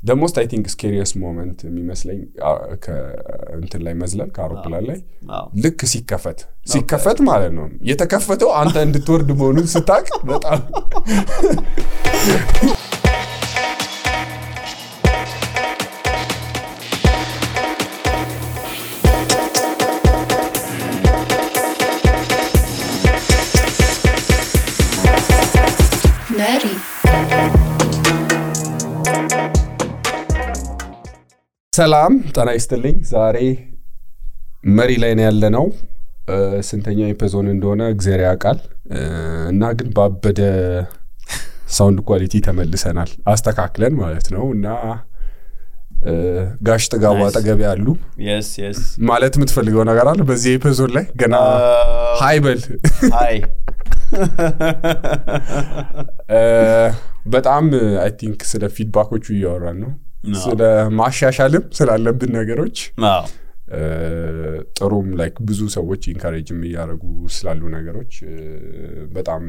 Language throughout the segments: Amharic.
the most I think scariest moment የሚመስለኝ እንትን ላይ መዝለል ከአውሮፕላን ላይ ልክ ሲከፈት ማለት ነው የተከፈተው አንተ እንድትወርድ መሆኑን ስታቅ በጣም Neri ሰላም ጤና ይስጥልኝ ዛሬ መሪ ላይ ነው ያለነው ስንተኛ ኤፒሶድ እንደሆነ እግዚአብሔር ያውቃል እና ግን ባበደ ሳውንድ ኳሊቲ ተመልሰናል አስተካክለን ማለት ነው እና ጋሽ ተጋባ አጠገብ ያሉ yes ማለት የምትፈልገው ነገር አለ በዚህ ኤፒሶድ ላይ ገና ሃይ በል ሃይ በጣም አይ ቲንክ ስለ ፊድባኮቹ እያወራን ነው ስለ ማሻሻልም ስላለብን ነገሮች ጥሩም ላይክ ብዙ ሰዎች ኢንካሬጅም ያደርጉ ስላሉ ነገሮች በጣም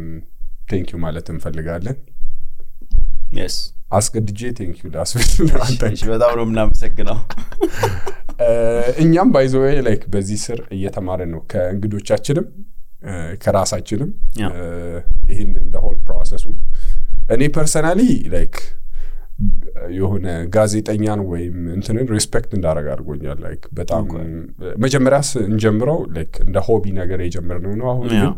ቴንክ ዩ ማለት እንፈልጋለን yes አስቀድጄ ቴንክ ዩ ላስብል አንተሽ በጣም ነው እናመሰግናው እኛም ባይ ዘ ዌይ ላይክ በዚህ ስር እየተማረን ነው ከእንግዶቻችንም ከራሳችንም ይሄን the whole process እኔ ፐርሰናሊ ላይክ የሆነ ጋዜጠኛን ወይም እንትንን ሪስፔክት እንዳደረግ አድርጎኛል ላይክ በጣም መጀመሪያስ እንጀምረው ላይክ እንደ ሆቢ ነገር የጀመርነው ነው አሁን ግን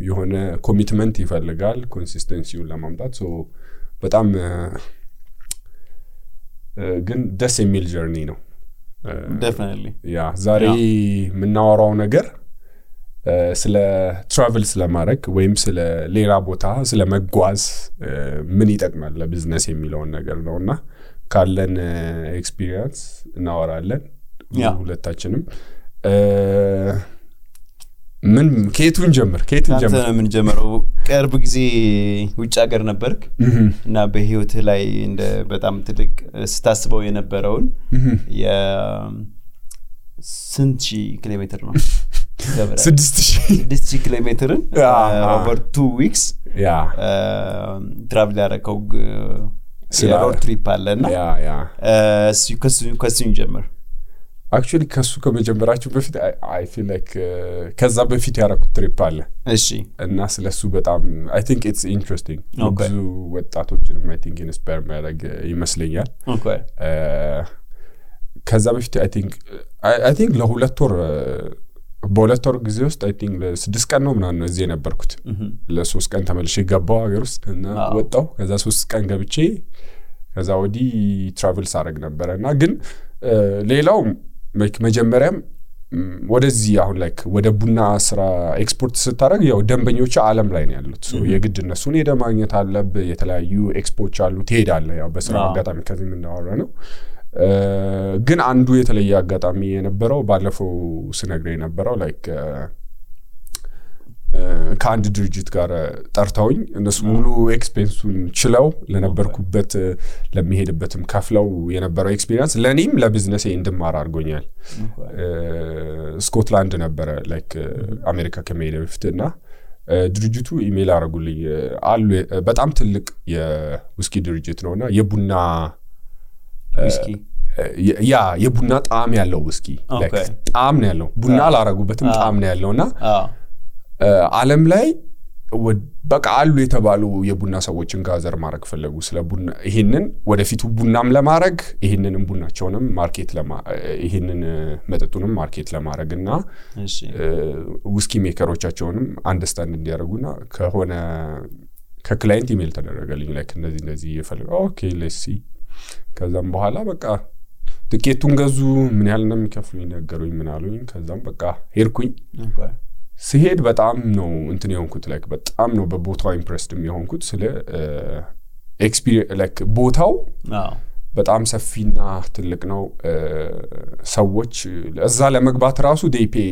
የሆነ ኮሚትመንት ይፈልጋል ኮንሲስተንሲውን ለማምጣት ሶ በጣም ግን ደስ የሚል ጀርኒ ነው definitely ያ ዛሬ ምናወራው ነገር ስለ ትራቨል ስለማድረግ ወይም ስለ ሌላ ቦታ ስለ መጓዝ ምን ይጠቅማል ለቢዝነስ የሚለው ነገር ነውና ካለን ኤክስፒሪየንስ እናወራለን ሁለታችንም ምን ከየቱን ጀምር ምን ጀምረው ቅርብ ጊዜ ውጭ ሀገር ነበርክ እና በህይወት ላይ እንደ በጣም ትልቅ ስታስበው የነበረውን ስንት ኪሎሜትር ነው 6000 ኪሎሜትርን over 2 weeks travel ያረከው የሮድ ትሪፕ አለና ከሱ ጀመር actually ከሱ ከመጀመራችሁ በፊት I feel like ከዛ በፊት ያረኩት ትሪፕ አለ እሺ እና ስለሱ በጣም I think it's interesting ብዙ ወጣቶችንም I think inspire ማድረግ ይመስለኛል okay ከዛ በፊት I think ለሁለት ወር በሁለት ወር ጊዜ ውስጥ I think ለ6 ቀን ነው ምናምን እዚህ ነበርኩት ለ3 ቀን ተመልሼ ገባው ሀገር ውስጥ እና ወጣው ከዛ 3 ቀን ገብቼ ከዛ ወዲ ትራቨል ሳረግ ነበርና ግን ሌላው መጀመሪያም ወደዚህ አሁን ላይክ ወደ ቡና ስራ ኤክስፖርት ስታረግ ያው ደንበኞች ዓለም ላይ ነው ያሉት ሶ የግድ እነሱን ሄደ ማግኘት አለበት የተለያዩ ኤክስፖርት አሉ ትሄዳለህ ያው በስራ አጋጣሚ ከዚህ ምን እንዳወራ ነው ግን አንዱ የተለየ አጋጣሚ የነበረው ባለፈው ስነግሬ የነበረው ላይክ ከአንድ ድርጅት ጋር ጠርተውኝ እነሱ ሙሉ ኤክስፔንሱን ችለው ለነበርኩበት ለሚሄድበትም ከፍለው የነበረው ኤክስፒሪየንስ ለኔም ለቢዝነሴ እንድማር አድርጎኛል ስኮትላንድ ነበረ ላይክ አሜሪካ ከመሄድ በፊትና ድርጅቱ ኢሜል አረጉልኝ አሉ በጣም ትልቅ የውስኪ ድርጅት ነውና የቡና ውስኪ የቡና ጣዕም ያለው ውስኪ ላይክ ጣዕም ነው ያለው ቡና አላረጉበትም ጣዕም ነው ያለውና ዓለም ላይ በቃ አሉ የተባሉ የቡና ሰዎችን ጋዘር ማድረግ ፈለጉ ስለ ቡና ይሄንን ወደፊቱ ቡናም ለማድረግ ይሄንንም ቡናቸውንም ማርኬት ይሄንን መጠጡንም ማርኬት ለማድረግና ውስኪ ሜከሮቻቸውንም አንደርስታንድ እንዲያደርጉና ከሆነ ከክላይንት ኢሜል ተደረገልኝ ላይክ እንደዚህ ይፈልጋው ኦኬ ሌትስ ሲ ከዛም በኋላ በቃ ትኬቱን ገዙ ምን ያህል እንደሚከፍሉኝ ነገሩኝ ምን አሉኝ ከዛም በቃ ሄድኩኝ ሲሄድ በጣም ነው እንትን የሆንኩት ላይክ በጣም ነው በቦታው ኢምፕሬስድ የሆንኩት ስለ ኤክስፒሪየንስ ላይክ ቦታው በጣም ሰፊና ትልቅ ነው ሰዎች እዛ ለመግባት ራሱ ዴይ ፔ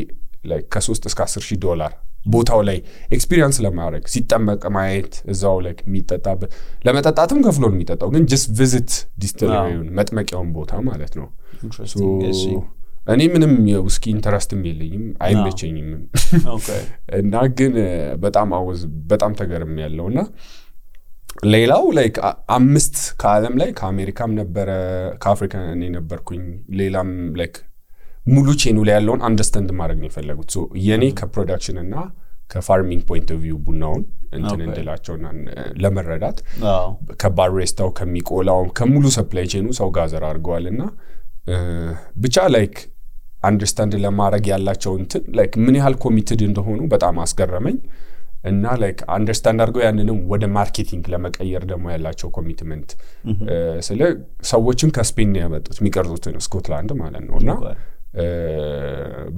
ላይክ ከ3 እስከ $10,000 ቦታው ላይ ኤክስፒሪየንስ ለማድረግ ሲጠመቅ ማየት እዛው ላይክ የሚጠጣበት ለመጠጣትም ከፍሎ ነው የሚጠጣው ግን just visit ዲስቲለሪውን መጥመቂያውን ቦታ ማለት ነው እኔ ምንም የውስኪ ኢንተረስትም የለኝም አይመቸኝም ኦኬ እና ግን በጣም ተገርም ያለውና ሌላው ላይክ 5 ከዓለም ላይ ከአሜሪካም ነበረ ከአፍሪካ እኔ ነበርኩኝ ሌላም ላይክ ሙሉ ቼኑ ላይ ያለውን አንደርስታንድ ማድረግ ነው የፈለጉት ሶ የኔ ከፕሮዳክሽን እና ከፋርሚንግ ፖይንት ኦፍ ቪው ቡናውን እንትን እንደላቸውና ለመረዳት ከባሬስታው ከሚቆላው ከሙሉ ሰፕላይ ቼኑ ሰው ጋዘር አድርገዋልና ብቻ ላይክ አንደርስታንድ ለማድረግ ያላቸው እንትን ላይክ ምን ያህል ኮሚትድ እንደሆኑ በጣም አስገረመኝ እና ላይክ አንደርስታንድ አድርገው ያንንም ወደ ማርኬቲንግ ለመቀየር ደግሞ ያላቸው ኮሚትመንት ስለ ሰዎችን ከስፔን ነው ያመጡት የሚቀርጹትን ስኮትላንድ ማለት ነውና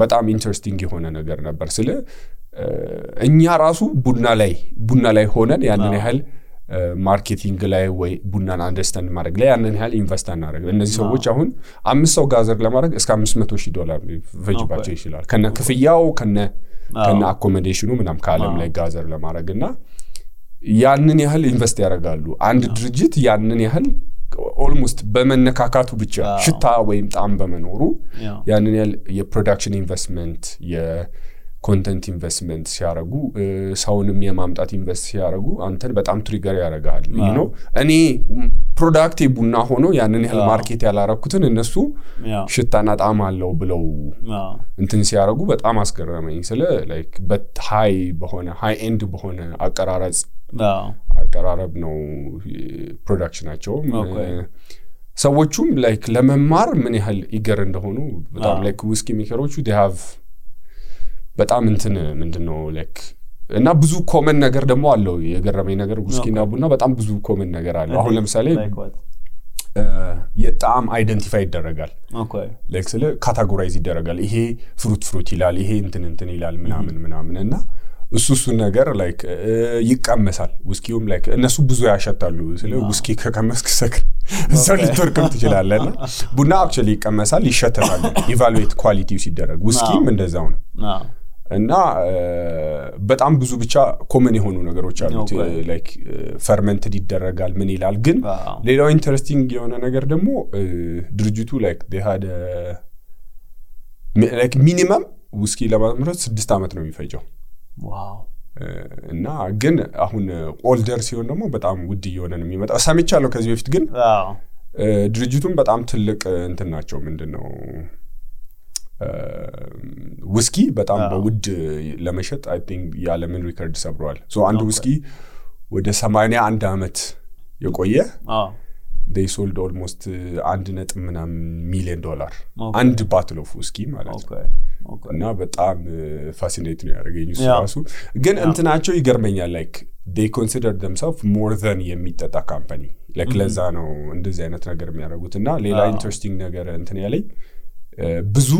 በጣም ኢንተረስቲንግ የሆነ ነገር ነበር ስለ እኛ ራሱ ቡና ላይ ሆነን ያንን ያህል ማርኬቲንግ ላይ ወይ ቡናን አንደርስታንድ ማድረግ ላይ ያንን ያህል ኢንቨስት አናደርግ እነዚህ ሰዎች አሁን 5 ሰው ጋዘር ለማድረግ እስከ $500,000 ፈጅባቸው ይችላል ከነ ክፍያው ከነ አኮሞዴሽኑ ምናም ከዓለም ላይ ጋዘር ለማድረግና ያንን ያህል ኢንቨስት ያደርጋሉ አንድ ድርጅት ያንን ያህል ኦልሞስት በመነካካቱ ብቻ ሽታ ወይም ጣም በመኖሩ ያንን ያህል የፕሮዳክሽን ኢንቨስትመንት የኮንተንት ኢንቨስትመንት ሲያረጉ ሰውንም የማምጣት ኢንቨስት ሲያረጉ አንተን በጣም ትሪገር ያደርጋል you know እኔ ፕሮዳክት ቡና ሆኖ ያንን ያህል ማርኬት ያላረኩትን እነሱ ሽታና ጣም አለው ብለው እንትን ሲያረጉ በጣም አስገረመኝ ስለ ላይክ በሃይ ኤንድ በሆነ አቀራረብ ነው ፕሮዳክሽናቸው ሰዎቹም ላይክ ለመማር ምን ያህል ኢገር እንደሆኑ በጣም ላይክ ዊስኪ ሜከሮቹ they have በጣም እንትን ምንድነው ላይክ እና ብዙ ኮመን ነገር ደግሞ አለው የገረመኝ ነገር ዊስኪና ቡና በጣም ብዙ ኮመን ነገር አለው አሁን ለምሳሌ የጣም አይደንቲፋይ ይደረጋል ላይክ ስለ ካታጎራይዝ ይደረጋል ይሄ ፍሩት ይላል ይሄ እንትን ይላል ምናምንና እሱ ነገር ላይክ ይቀመሳል ዊስኪውም ላይክ እነሱ ብዙ ያሸታሉ ስለ ዊስኪ ከቀመስክ ሰክር እዛው ልትወርቅም ትችላለና ቡና አክቹሊ ይቀመሳል ይሸተታል ኢቫሉዌት ኳሊቲው ሲደረግ ዊስኪም እንደዛው ነው እና በጣም ብዙ ብቻ ኮመን የሆኑ ነገሮች አሉት ላይክ ፈርመንትድ ይደረጋል ምን ይላል ግን ሌላው ኢንተረስቲንግ የሆነ ነገር ደግሞ ድርጅቱ ላይክ they had ላይክ ሚኒመም ዊስኪ ለማምረት 6 አመት ነው የሚፈጀው ዋው እና ግን አሁን ኦልደር ሲሆን ደግሞ በጣም ውድ እየሆነ ነው የሚመጣው ሰምቻለሁ ከዚህ በፊት ግን ድርጅቱም በጣም ትልቅ እንትን ናቸው ምንድነው ዊስኪ በጣም በውድ ለመሸጥ አይ ቲንክ ያለምን ሪከርድ ሰብሯል ሶ አንድ ዊስኪ ወደ 81 አመት የቆየ they sold almost $1 million አንድ ባትል ኦፍ ዊስኪ ማለት ነው እና በጣም ፋሲኔት ነው ያደረገኝ እሱ ግን እንትናቸው ይገርመኛል ላይክ they consider themselves more than የሚጠጣ ካምፓኒ ላይክ ለዛ ነው እንደዚህ አይነት ነገር የሚያደርጉትና ሌላ ኢንተረስቲንግ ነገር እንትን ያለኝ ብዙ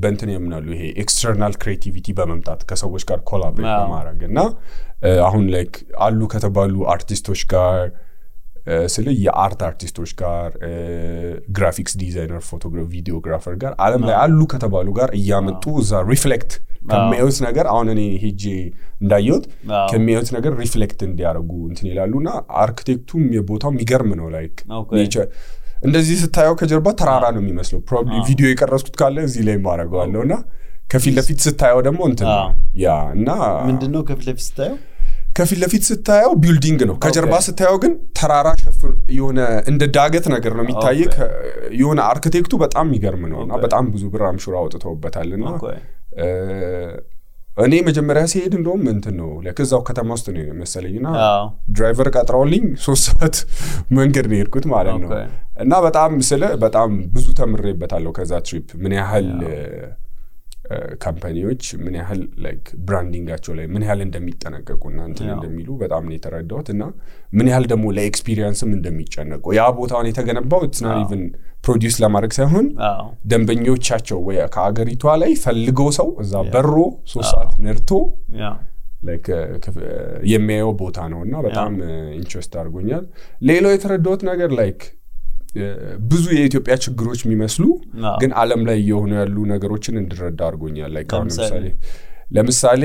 በእንትን የምናሉ ይሄ ኤክስተርናል ክሬቲቪቲ በመምጣት ከሰዎች ጋር ኮላቦሬት በማድረግና አሁን ላይክ አሉ ከተባሉ አርቲስቶች ጋር ስለ የአርት አርቲስቶች ጋር ግራፊክስ ዲዛይነር ፎቶግራፍ ቪዲዮግራፈር ጋር ዓለም ላይ አሉ ከተባሉ ጋር እያመጡ እዛ ሪፍሌክት ከሚያዩት ነገር አሁን እኔ ሄጄ እንዳየሁት ከሚያዩት ነገር ሪፍሌክት እንዲያደርጉ እንትን ይላሉና አርኪቴክቱም የቦታው የሚገርም ነው ላይክ ኔቸር እንደዚህ ስታየው ከጀርባ ተራራ ነው የሚመስለው ፕሮባብሊ ቪዲዮ የቀረጽኩት ካለ እዚህ ላይ ማረጋለውና ከፊት ለፊት ስታየው ደግሞ እንትን ያ እና ምንድነው ከፊት ለፊት ስታየው ቢልዲንግ ነው ከጀርባ ስታየው ግን ተራራ ሸፍን የሆነ እንደ ዳገት ነገር ነው የሚታየው የሆነ አርኪቴክቱ በጣም የሚገርም ነውና በጣም ብዙ ብር አምሹራ አውጥተውበታልና እኔ መጀመሪያ ሲሄድ እንደውም እንትን ነው ለከዛው ከተማ ውስጥ ነው መሰለኝና ድራይቨር ቀጥራውልኝ 3 ሰዓት መንገድ ነው የሄድኩት ማለት ነው እና በጣም ብዙ ተምሬበታለሁ ከዛ ትሪፕ ምን ያህል ካምፓኒዎች ምን ያህል ላይክ ብራንዲንጋቸው ላይ ምን ያህል እንደሚጠነቀቁና እንትን እንደሚሉ በጣም ነው የተረዳሁትና ምን ያህል ደግሞ ለኤክስፒሪየንስም እንደሚጨነቁ ያ ቦታውን የተገነባው it's not even ፕሮዲዩስ ለማድረግ ሳይሆን ደንበኞቻቸው ወይ ከአገሪቷ ላይ ፈልገው ሰው እዛ በሮ 3 ሰዓት ነርቶ ላይክ የሚያየው ቦታ ነውና በጣም ኢንትረስት አድርጎኛል ሌላው የተረዳሁት ነገር ላይክ ብዙ የኢትዮጵያ ችግሮች የሚመስሉ ግን ዓለም ላይ የሆኑ ያሉ ነገሮችን እንድረዳ አድርጎኛል ላይክ አሁን ለምሳሌ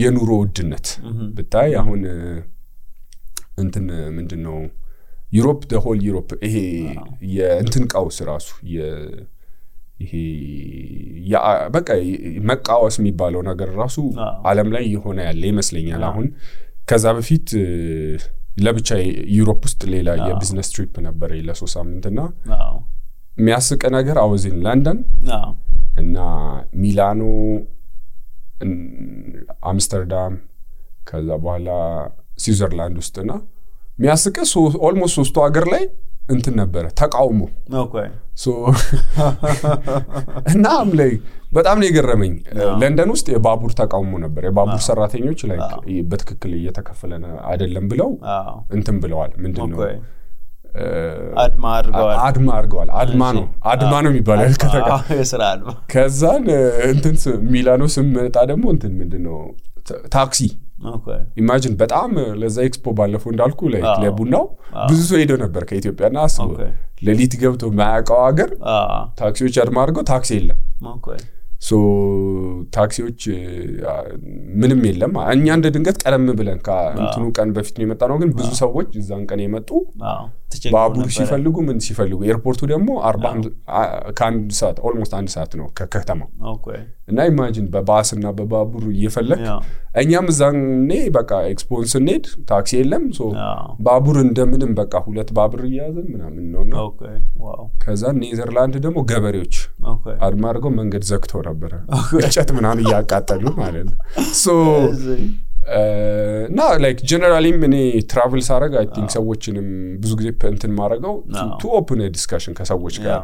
የኑሮ ውድነት ብታይ አሁን እንትን ምንድነው ዩሮፕ the whole ዩሮፕ ይሄ የእንትን ቀውስ ራሱ ይሄ ያ በቃ መቃወስ የሚባለው ነገር ራሱ ዓለም ላይ የሆነ ያለ ይመስለኛል አሁን ከዛ በፊት ለብቻ ዩሮፕ ውስጥ ሌላ የቢዝነስ ትሪፕ ነበር ለ3 ሳምንትና የሚያስቅ ነገር አወዚን ለንደን እና ሚላኖ አምስተርዳም ከዛ በኋላ ስዊዘርላንድ ውስጥና የሚያስቅ ኦልሞስት 3 ሀገር ላይ እንትን ነበር ተቃውሞ ሶ እና ላይ በጣም ነው የገረመኝ ለንደን ውስጥ የባቡር ተቃውሞ ነበር የባቡር ሰራተኞች ላይ በትክክል እየተከፈለና አይደለም ብለው እንትን ብለዋል ምንድነው አድማ ነው የሚባለው የሥራ አድማ ከዛን እንትን ሚላኖ ስመጣ ደግሞ እንትን ምንድነው ታክሲ ኢማጂን በጣም ለዛ ኤክስፖ ባለፈው እንዳልኩ ላይ ለቡናው ብዙ ሰው ሄዶ ነበር ከኢትዮጵያና አስቦ ለሊት ገብቶ ማያውቀው ሀገር ታክሲዎች አድማ አድርገው ታክሲ የለም ሶ ታክሲዎች ምንም የለም እኛ እንደ ድንገት ቀደም ብለን ከእንትኑ ቀን በፊት ነው የመጣነው ግን ብዙ ሰዎች እዛን ቀን የመጡ ባቡር ሲፈልጉ ምን ሲፈልጉ ኤርፖርቱ ደግሞ 40 ከአንድ ሰዓት ኦልሞስት 1 ሰዓት ነው ከከተማው እና ኢማጂን በባስና በባቡር እየፈለክ እኛም እዛኔ በቃ ኤክስፖንስ እንሄድ ታክሲ የለም ሶ ባቡር እንደምንም በቃ 2 ባቡር እያያዘን ምናምን ነውና ከዛ ኔዘርላንድ ደግሞ ገበሬዎች አድማ አድርገው መንገድ ዘግተው ነበር እንጨት ምናምን እያቃጠሉ ማለት ነው ሶ እና ላይክ ጀነራሊ እኔ ትራቨል ሳረግ አይ ቲንክ ሰዎችንም ብዙ ጊዜ እንትን ማረጋው ቱ ኦፕን ዲስከሽን ከሰዎች ጋር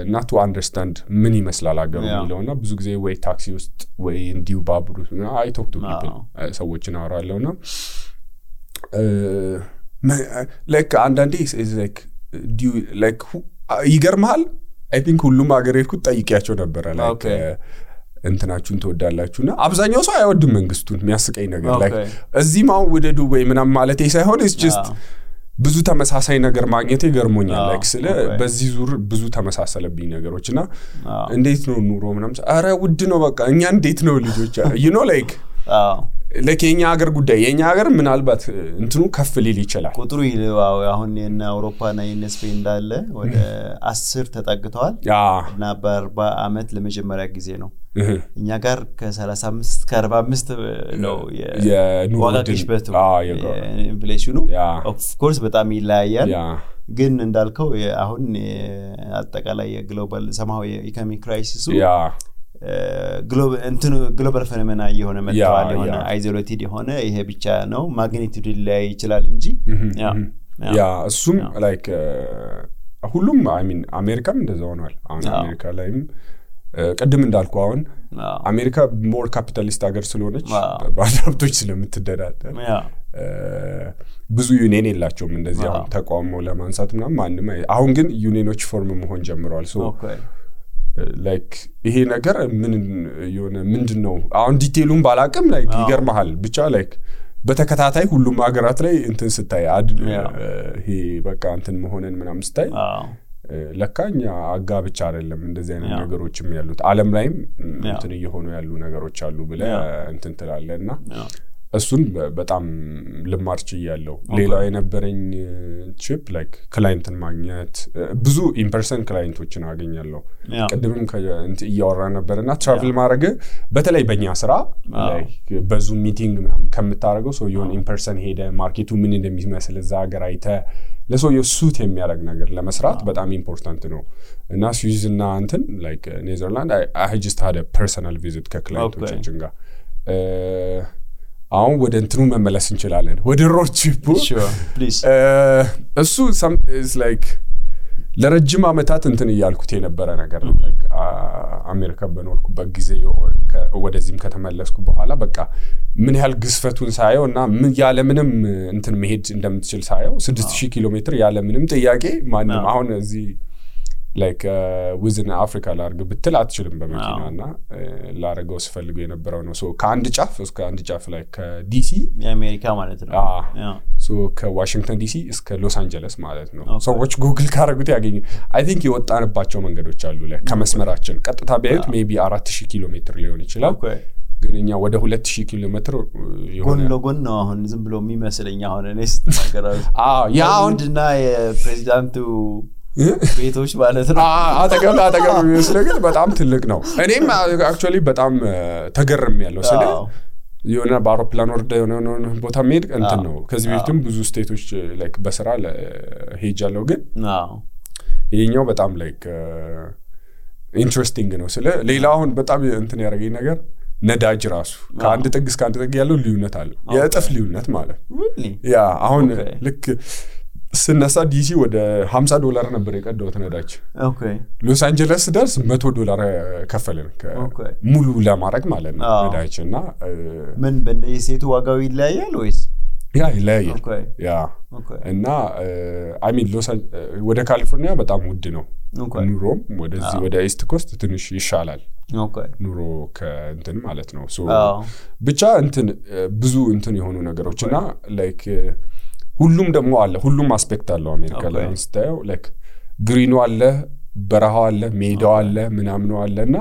እና ቱ አንደርስታንድ ምን ይመስላል አገሩ የሚለውና ብዙ ጊዜ ወይ ታክሲ ውስጥ ወይ እንዲሁ ባቡር አይ ቶክ ቱ ፒፕል ሰዎችን አወራለሁና ላይክ አንዳንዴ ላይክ ይገርምሃል አይ ቲንክ ሁሉም አገር ሄድኩት ጠይቂያቸው ነበር ላይክ እንትናችሁን ተወዳላችሁና አብዛኛው ሰው አይወድም መንግስቱን የሚያስቀኝ ነገር ላይክ እዚህ ማው ወደ ዱባይ ምናም ማለት ሳይሆን ኢትስ ጀስት ብዙ ተመሳሳይ ነገር ማግኘት ይገርሞኛል ላይክ ስለ በዚህ ዙር ብዙ ተመሳሰለብኝ ነገሮችና እንዴት ነው ኑሮ ምናም አረ ውድ ነው በቃ እኛ እንዴት ነው ልጆች you know like ለኬኛ ሀገር ጉዳይ የኛ ሀገር ምናልባት እንትኑ ከፍ ሊል ይችላል ቁጥሩ ይልዋው አሁን የና አውሮፓና የነስፔን እንዳለ ወደ 10 ተጠግተዋል እና በ40 አመት ለመጀመሪያ ጊዜ ነው እኛ ጋር ከ35 እስከ 45 ነው የዋጋ ግሽበቱ ኢንፍሌሽኑ ኦፍ ኮርስ በጣም ይለያያል ግን እንዳልከው አሁን አጠቃላይ የግሎባል ሰማው የኢኮኖሚ ክራይሲሱ ግሎባል ፌኖሜና የሆነ መጥቷል የሆነ አይዞሌትድ የሆነ ይሄ ብቻ ነው ማግኒቲዩድ ላይ ይችላል እንጂ ያ እሱም ላይክ ሁሉም አይ ሚን አሜሪካም እንደዛው ነው አሁን አሜሪካ ላይም ቀደም እንዳልኩ አሁን አሜሪካ ሞር ካፒታሊስት ሀገር ስለሆነች ባለሀብቶች ስለምትደዳደር ብዙ ዩኒየን የላቸውም እንደዚህ አሁን ተቋሞ ለማንሳት ምናምን ማንንም አሁን ግን ዩኒየኖች ፎርም መሆን ጀምረዋል ሶ ላይክ ይሄ ነገር ምን የሆነ ምንድነው አሁን ዲቴሉን ባላቀም ላይክ ይገርማል ብቻ ላይክ በተከታታይ ሁሉም ሀገራት ላይ እንትን ስታይ ይሄ በቃ እንትን መሆነን ምናምን ስታይ ለካኛ አጋብቻ አይደለም እንደዚህ አይነት ነገሮችም ያሉት ዓለም ላይም እንትን እየሆኑ ያሉ ነገሮች አሉ ብለ እንትን ትላለና እሱን በጣም ልማርች ይያለው ሌላው የነበረኝ ቺፕ ላይክ ክላይንትን ማግኘት ብዙ ኢንፐርሰን ክላይንቶችን አገኛለሁ ቀደምም እያወራ ነበርና ትራቨል ማድረግ በተለይ በእኛ ስራ ላይክ በዙም ሚቲንግ ምናምን ከምታረገው ሰው የሆነ ኢንፐርሰን ሄደ ማርኬቱ ምን እንደሚመስል እዛ ሀገር አይተ ለሰው የሱት የሚያደርግ ነገር ለመስራት በጣም ኢምፖርታንት ነው እና ስዊዝ እና እንትን ላይክ ኔዘርላንድ አይ ጀስት ሃድ አ ፐርሰናል ቪዚት ከክላይንቶቻችን ጋር አሁን ወደ እንትኑ መመለስ እንችላለን ወደ ሮድ ትሪፑ እሱ is like ለረጅም አመታት እንትን ይያልኩት የነበረ ነገር ነው ላይክ አሜሪካ በኖርኩበት ጊዜ ወደዚህም ከተመለስኩ በኋላ በቃ ምን ያህል ግስፈቱን ሳየውና ምን ያለ ምንም እንትን መሄድ እንደምትችል ሳየው 6000 ኪሎ ሜትር ያለ ምንም ጥያቄ ማንም አሁን እዚህ like within Africa ላርግ ብትል አትችልም በመኪናና ላረገው ስፈልገው የነበረው ነው ሶ ከአንድ ጫፍ እስከ አንድ ጫፍ ላይ ከዲሲ የአሜሪካ ማለት ነው ሶ ከዋሽንግተን ዲሲ እስከ ሎስ አንጀለስ ማለት ነው ሰዎች ጉግል ካረጉት ያገኙ አይ ቲንክ የወጣንባቸው መንገዶች አሉ ላይ ከመስመራችን ቀጥታ ቢያዩት ሜቢ 4000 ኪሎ ሜትር ሊሆን ይችላል ግን እኛ ወደ 2000 ኪሎ ሜትር ጎን ለጎን ነው አሁን ዝም ብሎ የሚመስለኝ አሁን እኔ ስትናገራው ያ አሁንና የፕሬዚዳንቱ ቤቶች ማለት ነው አጠገብ የሚመስለው ግን በጣም ትልቅ ነው እኔም አክቹአሊ በጣም ተገርም ያለው ስለ የሆነ በአውሮፕላን ወርደ የሆነ ቦታ መሄድ እንትን ነው ከዚህ በፊትም ብዙ ስቴቶች ላይክ በስራ ሄጃለሁ ግን ይሄኛው በጣም ላይክ ኢንትረስቲንግ ነው ስለ ሌላ አሁን በጣም እንትን ያደረገኝ ነገር ነዳጅ ራሱ ከአንድ ጥግ እስከ አንድ ጥግ ያለው ልዩነት አለ የእጥፍ ልዩነት ማለት ያ አሁን ልክ ስነሳ ዲሲ ወደ $50 ነበር የቀደውት ነዳጅ ሎስ አንጀለስ ደርስ $100 ከፈለን ሙሉ ለማድረግ ማለት ነው ነዳጅና ምን በእንደየሴቱ ዋጋው ይለያያል ወይስ ያ ይለያያል ያ እና አይ ሚን ወደ ካሊፎርኒያ በጣም ውድ ነው ኑሮም ወደዚህ ወደ ኢስት ኮስት ትንሽ ይሻላል ኑሮ ከእንትን ማለት ነው ሶ ብቻ እንትን ብዙ እንትን የሆኑ ነገሮችና ላይክ ሁሉም ደግሞ አለ ሁሉም አስፔክት አለው አሜሪካ ላይ ስታየው ላይክ ግሪኑ አለ በረሃው አለ ሜዳው አለ ምናምን አለና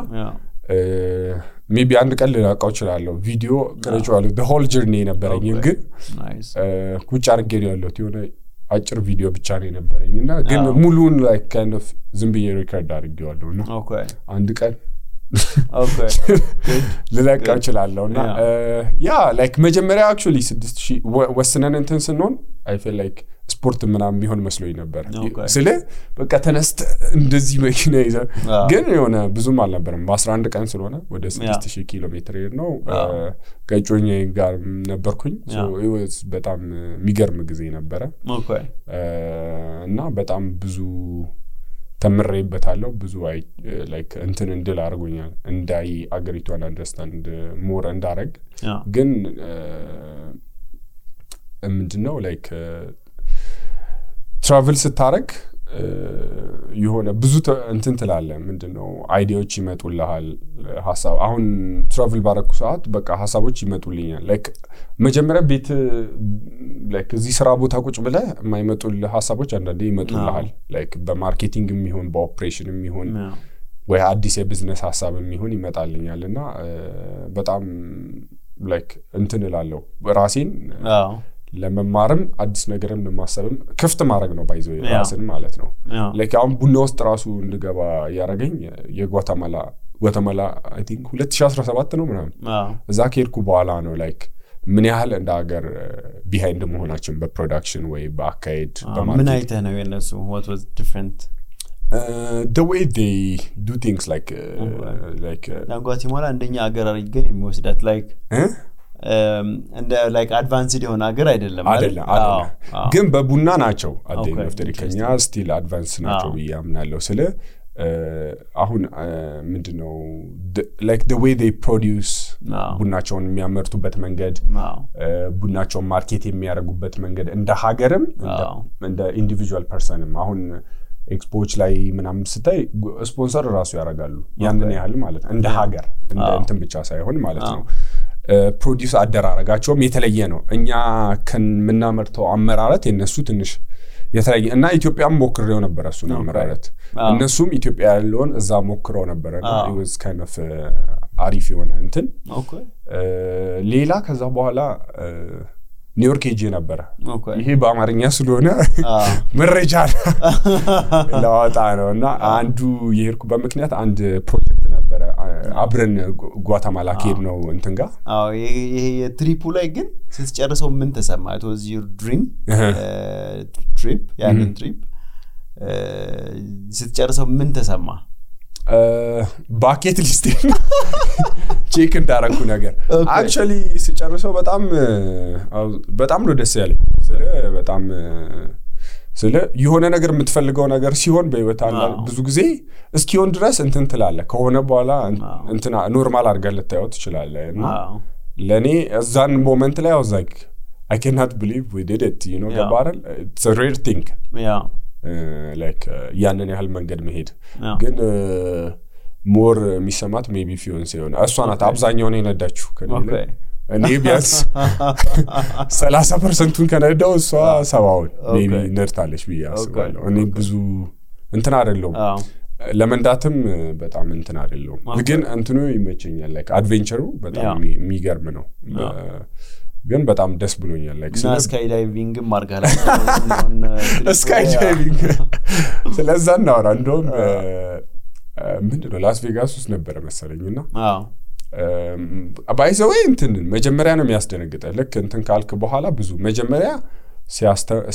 ሜቢ አንድ ቀን ልላቀው ይችላል ቪዲዮ ቀርጬዋለሁ the whole journey ነበረኝ ግን ቁጭ አድርጌ ነው ያለሁት የሆነ አጭር ቪዲዮ ብቻ ነው ነበረኝና ግን ሙሉን like kind of ዝም ብዬ ሪከርድ አድርጌዋለሁና አንድ ቀን ልላቀው ይችላልና ያ like መጀመሪያ actually 6000 ወስነን እንትን ስንሆን I feel like ስፖርት ምናምን ቢሆን መስሎኝ ነበር ስለ በቃ ተነስተ እንደዚህ መኪና ይዘ ግን የሆነ ብዙም አልነበረም በ11 ቀን ስለሆነ ወደ 6000 ኪሎ ሜትር ነው ከጮኜ ጋር ነበርኩኝ so it was በጣም የሚገርም ጊዜ ነበር እና በጣም ብዙ ተምሬበታለሁ ብዙ like እንትን እንድል አድርጎኛል እንዳይ አገሪቷን አንደርስታንድ ሞር እንዳረግ ግን ምንድነው like ትራቨል ስታረግ የሆነ ብዙ እንትን ትላለ ምንድነው አይዲያዎች ይመጡልሃል ሐሳብ አሁን ትራቨል ባረኩ ሰዓት በቃ ሐሳቦች ይመጡልኛል like መጀመሪያ ቤት like እዚህ ስራ ቦታ ቁጭ ብለ የማይመጡልህ ሐሳቦች አንዳንዴ ይመጡልሃል like በማርኬቲንግም ይሁን በኦፕሬሽንም ይሁን ወይ አዲስ የቢዝነስ ሐሳብም ይሁን ይመጣልኛልና በጣም like እንትን እላለሁ ራሴን ለመማርም አዲስ ነገርም ለማሰብም ክፍት ማድረግ ነው ባይዘው ራስን ማለት ነው like አሁን ቡና ውስጥ ራሱ እንድገባ ያረጋኝ የጓተማላ I think 2017 ነው ምናምን እዛ ከሄድኩ በኋላ ነው like ምን ያህል እንደ ሀገር ቢሃይንድ መሆናችን በፕሮዳክሽን ወይ በአካይድ በማርኬት ምን አይተህ ነው የነሱ what was different the way they do things like ጓተማላ እንደኛ ሀገር አድርገን የሚወስዳት like and like advanced የሆነ ሀገር አይደለም ግን በቡና ናቸው አደኝፍተሪከኛ ስቲል አድቫንስ ናቸው ያምናለው ስለ አሁን ምንድነው like the way they produce ቡናቸውን የሚያመርቱበት መንገድ ቡናቸውን ማርኬት የሚያደርጉበት መንገድ እንደ ሀገርም እንደ ኢንዲቪጁዋል ፐርሰንም አሁን ኤክስፖዎች ላይ ምናምን ስታይ ስፖንሰር ራሱ ያደርጋሉ ያንን ያህል ማለት እንደ ሀገር እንደ እንትን ብቻ ሳይሆን ማለት ነው ፕሮዲዩስ አደራረጋቸውም የተለየ ነው እኛ ከመናመርተው አመራረት የነሱ ትንሽ የተለየ እና ኢትዮጵያም ሞክረው ነበር እሱ አመራረት እነሱም ኢትዮጵያ ያለውን እዛ ሞክረው ነበርና it was kind of አሪፍ የሆነ እንትን ሌላ ከዛ በኋላ ኒውዮርክ ሄጄ ነበር ይሄ በአማርኛ ስለሆነ መረጃ ለዋጣ ነውና አንዱ የሄድኩ በመክንያት አንድ ፕሮጀክት ነበር አብረን ጓተማላ ሄድ ነው እንትንጋ ይሄ የትሪፑ ላይ ግን ስትጨርሰው ምን ተሰማ it was your dream trip ያንን ትሪፕ ስትጨርሰው ምን ተሰማ ባኬት ሊስት ቼክ እንዳረኩ ነገር actually ሲጨርሰው በጣም ነው ደስ ያለኝ በጣም ስለ የሆነ ነገር የምትፈልገው ነገር ሲሆን በህይወት አለ ብዙ ጊዜ እስኪሆን ድረስ እንትን ትላለ ከሆነ በኋላ እንትና ኖርማል አድርገህ ልታየው ትችላለህ እና ለኔ እዛን ሞመንት ላይ I was like I cannot believe we did it you know the barrel it's a rare thing like ያንን ያህል መንገድ መሄድ ግን ሞር የሚሰማት ሜቢ ፊዮንስ ይሆን እሷናት አብዛኛው ነው የነዳችሁ ከኔ እኔ ቢያንስ 30% ከነዳው እሷ 70 ሜቢ ነርታለች ብያስባለሁ እኔ ብዙ እንትን አይደለም ለመንዳትም በጣም እንትን አይደለም ግን እንትኑ ይመቸኛል like አድቬንቸሩ በጣም የሚገርም ነው ግን በጣም ደስ ብሎኛል like ስካይ ዳይቪንግ ማርጋላ ስካይ ዳይቪንግ ስለዛ ነው እንደውም ምንድነው ላስ ቬጋስ ውስጥ ነበር መሰለኝና ባይዘው እንትን መጀመሪያ ነው የሚያስደነግጠው ልክ እንትን ካልክ በኋላ ብዙ መጀመሪያ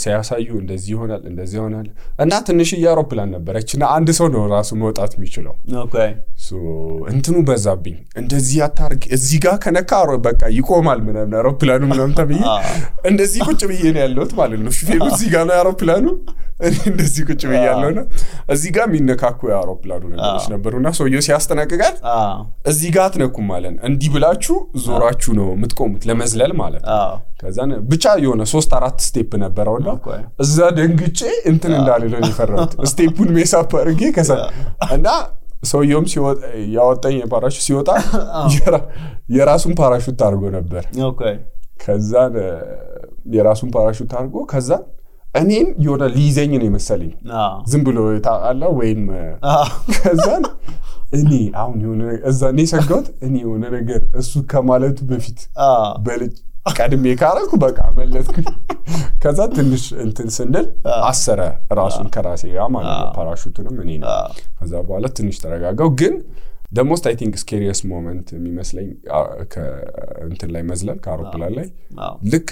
ሲያሳዩ እንደዚህ ይሆናል እና ትንሽ የአውሮፕላን ነበረችና አንድ ሰው ነው ራሱ መውጣት የሚችለው ኦኬ ሶ እንትኑ በዛብኝ እንደዚህ አታርግ እዚህ ጋር ከነካ በቃ ይቆማል ምናምን አውሮፕላኑ ምናምን ተብዬ እንደዚህ ቁጭ ብዬ ነው ያለሁት ማለት ነው ሹፌሩ እዚህ ጋር ነው አውሮፕላኑ እንደዚህ ቁጭ ብዬ ያለውና እዚህ ጋር የሚነካኩ አውሮፕላኑ ነገሮች ነበርና ሰውየው ሲያስተናግጋል እዚህ ጋር አትነኩም ማለት እንዲህ ብላችሁ ዞራችሁ ነው የምትቆሙት ለመዝለል ማለት ከዛን ብቻ የሆነ 3-4 ስቴፕ ነበርውና እዛ ደንግጬ እንትን እንዳልለው ይፈራሁት ስቴፑን ሜሳፕ አድርጌ ከዛ እና ሰውየውም ሲወጣ ያወጣኝ ፓራሹት ሲወጣ የራሱን ፓራሹት አድርጎ ነበር ኦኬ ከዛን የራሱን ፓራሹት አድርጎ ከዛ እኔን የሆነ ሊይዘኝ ነው መሰለኝ ዝም ብሎ ታአላ ወይም ከዛን እኔ አሁን የሆነ እዛኔ ሰጋውት እኔ የሆነ ነገር እሱ ከማለቱ በፊት በልጅ ቀድሜ ካረኩ በቃ መለጥኩ ከዛ ትንሽ እንትን ስንል አሰረ ራሱን ከራሴ ጋር ማለት ነው ፓራሹቱንም እኔ ነው ከዛ በኋላ ትንሽ ተረጋጋው ግን the most I think scariest moment የሚመስለኝ እንትን ላይ መዝለል ከአውሮፕላን ላይ ልክ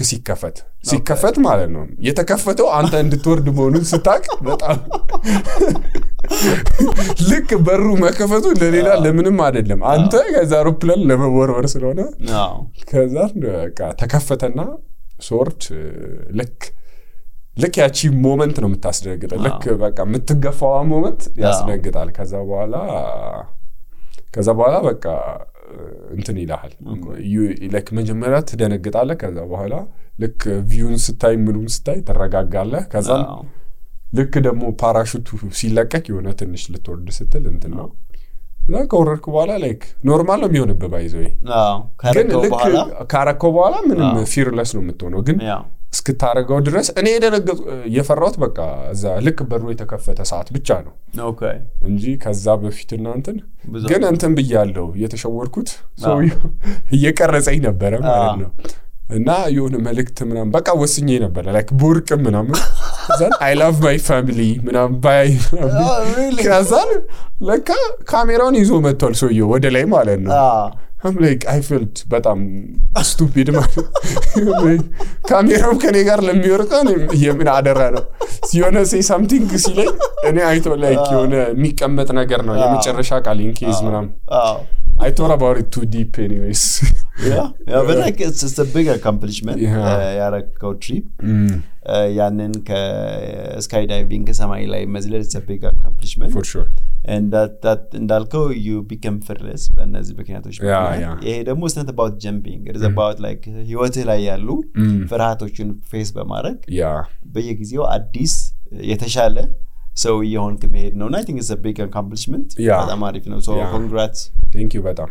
ሲከፈት ማለት ነው የተከፈተው አንተ እንድትወርድ መሆኑን ስታቅ በጣም ልክ በሩ መከፈቱ ለሌላ ለምንም አይደለም አንተ ከዛ አውሮፕላን ለመወርወር ስለሆነ ከዛ በቃ ተከፈተና ሶርት ልክ ያቺ ሞመንት ነው የምታስደነግጠው ልክ በቃ የምትገፋው ሞመንት ያስደነግጣል ከዛ በኋላ በቃ እንትን ይላል like መጀመሪያ ትደነግጣለህ ከዛ በኋላ ልክ ቪውን ስታይ ምኑም ስታይ ተረጋጋለህ ከዛ ልክ ደግሞ ፓራሹቱ ሲለቀቅ የሆነ ትንሽ ልትወርድ ስትል እንትን ነው እና ከወረድኩ በኋላ like ኖርማል ነው የሚሆንብህ ባይዘው ካረከው በኋላ ምንም ፊርለስ ነው የምትሆነው ግን እስክታረጋው ድረስ እኔ የፈራሁት በቃ እዛ ልክ በሩ የተከፈተ ሰዓት ብቻ ነው ኦኬ እንጂ ከዛ በፊት እናንተን ግን እንትን ብያለሁ የተሸወርኩት ሰው እየቀረጸኝ ነበር ማለት ነው እና የሆነ መልእክት ምናምን በቃ ወስኜ ነበር like ቦርቅ ምናምን ዘን I love my family ምናምን ባይ ከዛን ለካ ካሜራውን ይዞ መጥቷል ሰውየው ወደ ላይ ማለት ነው I'm like I felt በጣም stupid ማለት ካሜራው ከኔ ጋር ለሚወርቀው የምን አደራ ነው ሲሆነ say something ሲለኝ እኔ አይቶ like የሆነ የሚቀመጥ ነገር ነው የመጨረሻ ቃል in case ምናምን I thought about it too deep anyways yeah but like it's a big accomplishment ያረከው trip ያንን ከስካይዳይቪንግ ከሰማይ ላይ መዝለል it's a big accomplishment for sure and that እንዳልከው you become fearless በእነዚህ ምክንያቶች ይሄ ደግሞ it's not about jumping it is about like ህይወትህ ላይ ያሉ ፍርሃቶችን ፌስ በማድረግ በየጊዜው አዲስ የተሻለ ሰው እየሆንክ መሄድ ነው I think it's a big accomplishment በጣም አሪፍ ነው so congrats thank you በጣም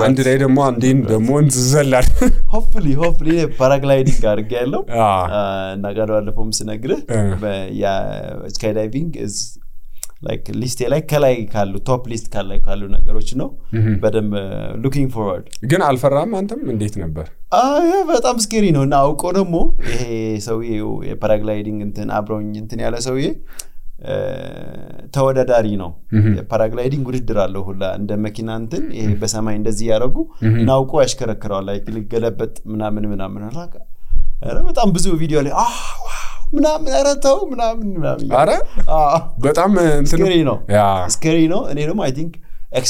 አንድ ላይ ደግሞ አንዴን ደግሞ እንዘላል hopefully paragliding አድርጌያለሁ እና ጋር ባለፈውም ስነግርህ ያ skydiving is like ሊስቴ ላይ ከላይ ካሉ ቶፕ ሊስት ካሉ ነገሮች ነው በደም looking forward ግን አልፈራም አንተም እንዴት ነበር በጣም ስኬሪ ነው እና አውቆ ደግሞ ይሄ ሰውዬው የፓራግላይዲንግ እንትን አብሮኝ እንትን ያለ ሰውዬ ተወዳዳሪ ነው ፓራግላይዲንግ ውድድር አለው ሁላ እንደ መኪና እንትን ይሄ በሰማይ እንደዚህ ያረጉ ናውቆ ያሽከረክራል ላይ ልገለበጥ ምናምን አላካ በጣም ብዙ ቪዲዮ ላይ ምናምን አረተው ምናምን አረ በጣም እንትን ነው ስኬሪ ነው እኔ ደግሞ I think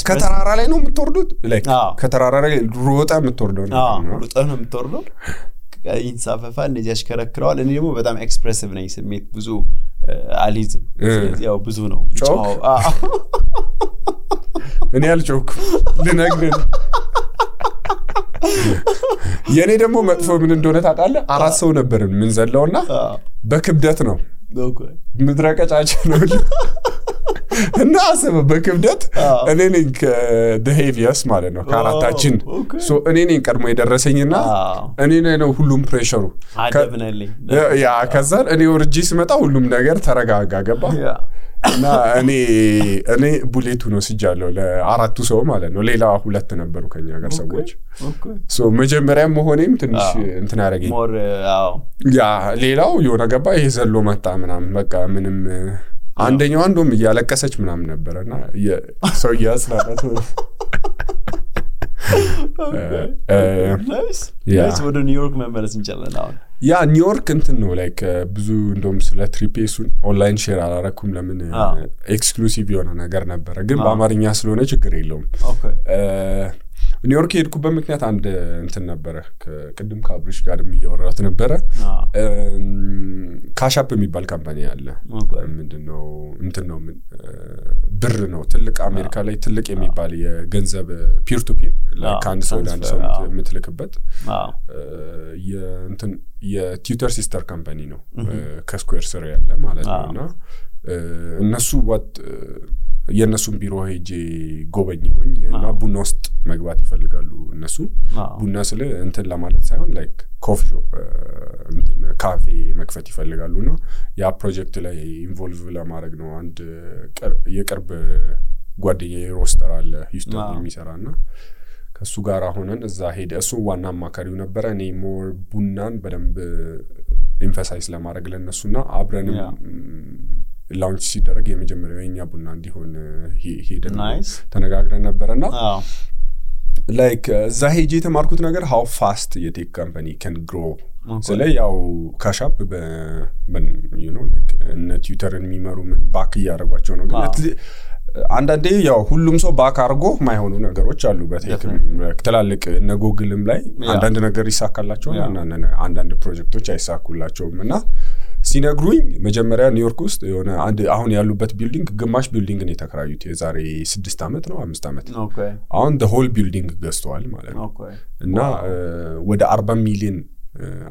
ከተራራ ላይ ነው የምትወርዱት like ከተራራ ላይ ሮጣ የምትወርደው ነው ሮጣ ነው የምትወርደው ይንሳፈፋ እንደዚህ ያሽከረክራል እኔ ደግሞ በጣም ኤክስፕሬሲቭ ነኝ ስሜት ብዙ አሊዝም ያው ብዙ ነው እኔ አልጮክ ልነግርህ የኔ ደግሞ መጥፎ ምን እንደሆነ ታውቃለህ አራት ሰው ነበርን ምን ዘለውና በክብደት ነው ምድረቀጫጭ ነው እና አሰበ በክብደት እኔ ነኝ the heaviest ማለት ነው ካራታችን so እኔ ነኝ ቀድሞ የደረሰኝና እኔ ነው ሁሉም ፕሬሸሩ ያ ከዛ እኔ ወርጂ ስመጣ ሁሉም ነገር ተረጋጋ ገባ እና እኔ ቡሌቱ ነው ሲጃለው ለአራቱ ሰው ማለት ነው ሌላ ሁለት ነበሩ ከኛ ጋር ሰዎች so መጀመሪያ መሆኔም ትንሽ እንትን ያረጋኝ ያ ሌላው የሆነ ገባ ይሄ ዘሎ መጣ ምናምን በቃ ምንም አንደኛው አንዱም ያለቀሰች ምናምን ነበርና ሰው ያስላላት ናይስ ወደ ኒውዮርክ መመለስ እንችላለን አሁን ያ ኒውዮርክ እንትን ነው ላይክ ብዙ እንደውም ስለ ትሪፔሱን ኦንላይን ሼር አላረኩም ለምን ኤክስክሉሲቭ የሆነ ነገር ነበር ግን በአማርኛ ስለሆነ ችግር የለውም ኒውዮርክ ሄድኩበት ምክንያት አንድ እንትን ነበረ ከቅድም ከአብሪሽ ጋርም እያወራት ነበረ ካሻፕ የሚባል ካምፓኒ አለ ምንድነው እንትን ነው ብር ነው ትልቅ አሜሪካ ላይ ትልቅ የሚባል የገንዘብ ፒር ቱ ፒር ለካንድ ሰው አንድ ሰው የምትልክበት የእንትን የቲዩተር ሲስተር ካምፓኒ ነው ከስኩዌር ስር ያለ ማለት ነውና እነሱ የነሱን ቢሮ ሄጄ ጎበኘሁኝ እና ቡና ውስጥ መግባት ይፈልጋሉ እነሱ ቡና ስለ እንትን ለማለት ሳይሆን ላይክ ኮፊ ሾፕ እንትን ካፌ መክፈት ይፈልጋሉና ያ ፕሮጀክት ላይ ኢንቮልቭ ለማድረግ ነው አንድ የቅርብ ጓደኛዬ ሮስተር አለ ሂውስተን የሚሰራና ከሱ ጋር ሆነን እዛ ሄደ እሱ ዋና አማካሪው ነበር እኔ ሞር ቡናን በደንብ ኤምፋሳይዝ ለማድረግ ለነሱና አብረንም ላውንች ሲደረግ የመጀመሪያው የኛ ቡና እንዲሆን ሄደን ተነጋግረን ነበርና ላይክ እዛ ሄጄ የተማርኩት ነገር how fast የቴክ ካምፓኒ can grow ስለዚህ ያው ካሻፕ you know like እነ ትዊተርን የሚመሩ ምን ባክ ያደርጓቸው ነው ግን አንዳንዴ ያው ሁሉም ሰው ባክ አርጎ ማይሆኑ ነገሮች አሉ በቴክ ተላልቅ እነ ጉግልም ላይ አንዳንድ ነገር ይሳካላቸው አንዳንድ ፕሮጀክቶች አይሳኩላቸውምና ሲነግሩኝ መጀመሪያ ኒውዮርክ ውስጥ የሆነ አንድ አሁን ያሉበት ቢልዲንግ ግማሽ ቢልዲንግ ነው የተከራዩት የዛሬ 6 አመት ነው 5 አመት አሁን the whole building ገዝተዋል ማለት ነው እና ወደ 40 ሚሊዮን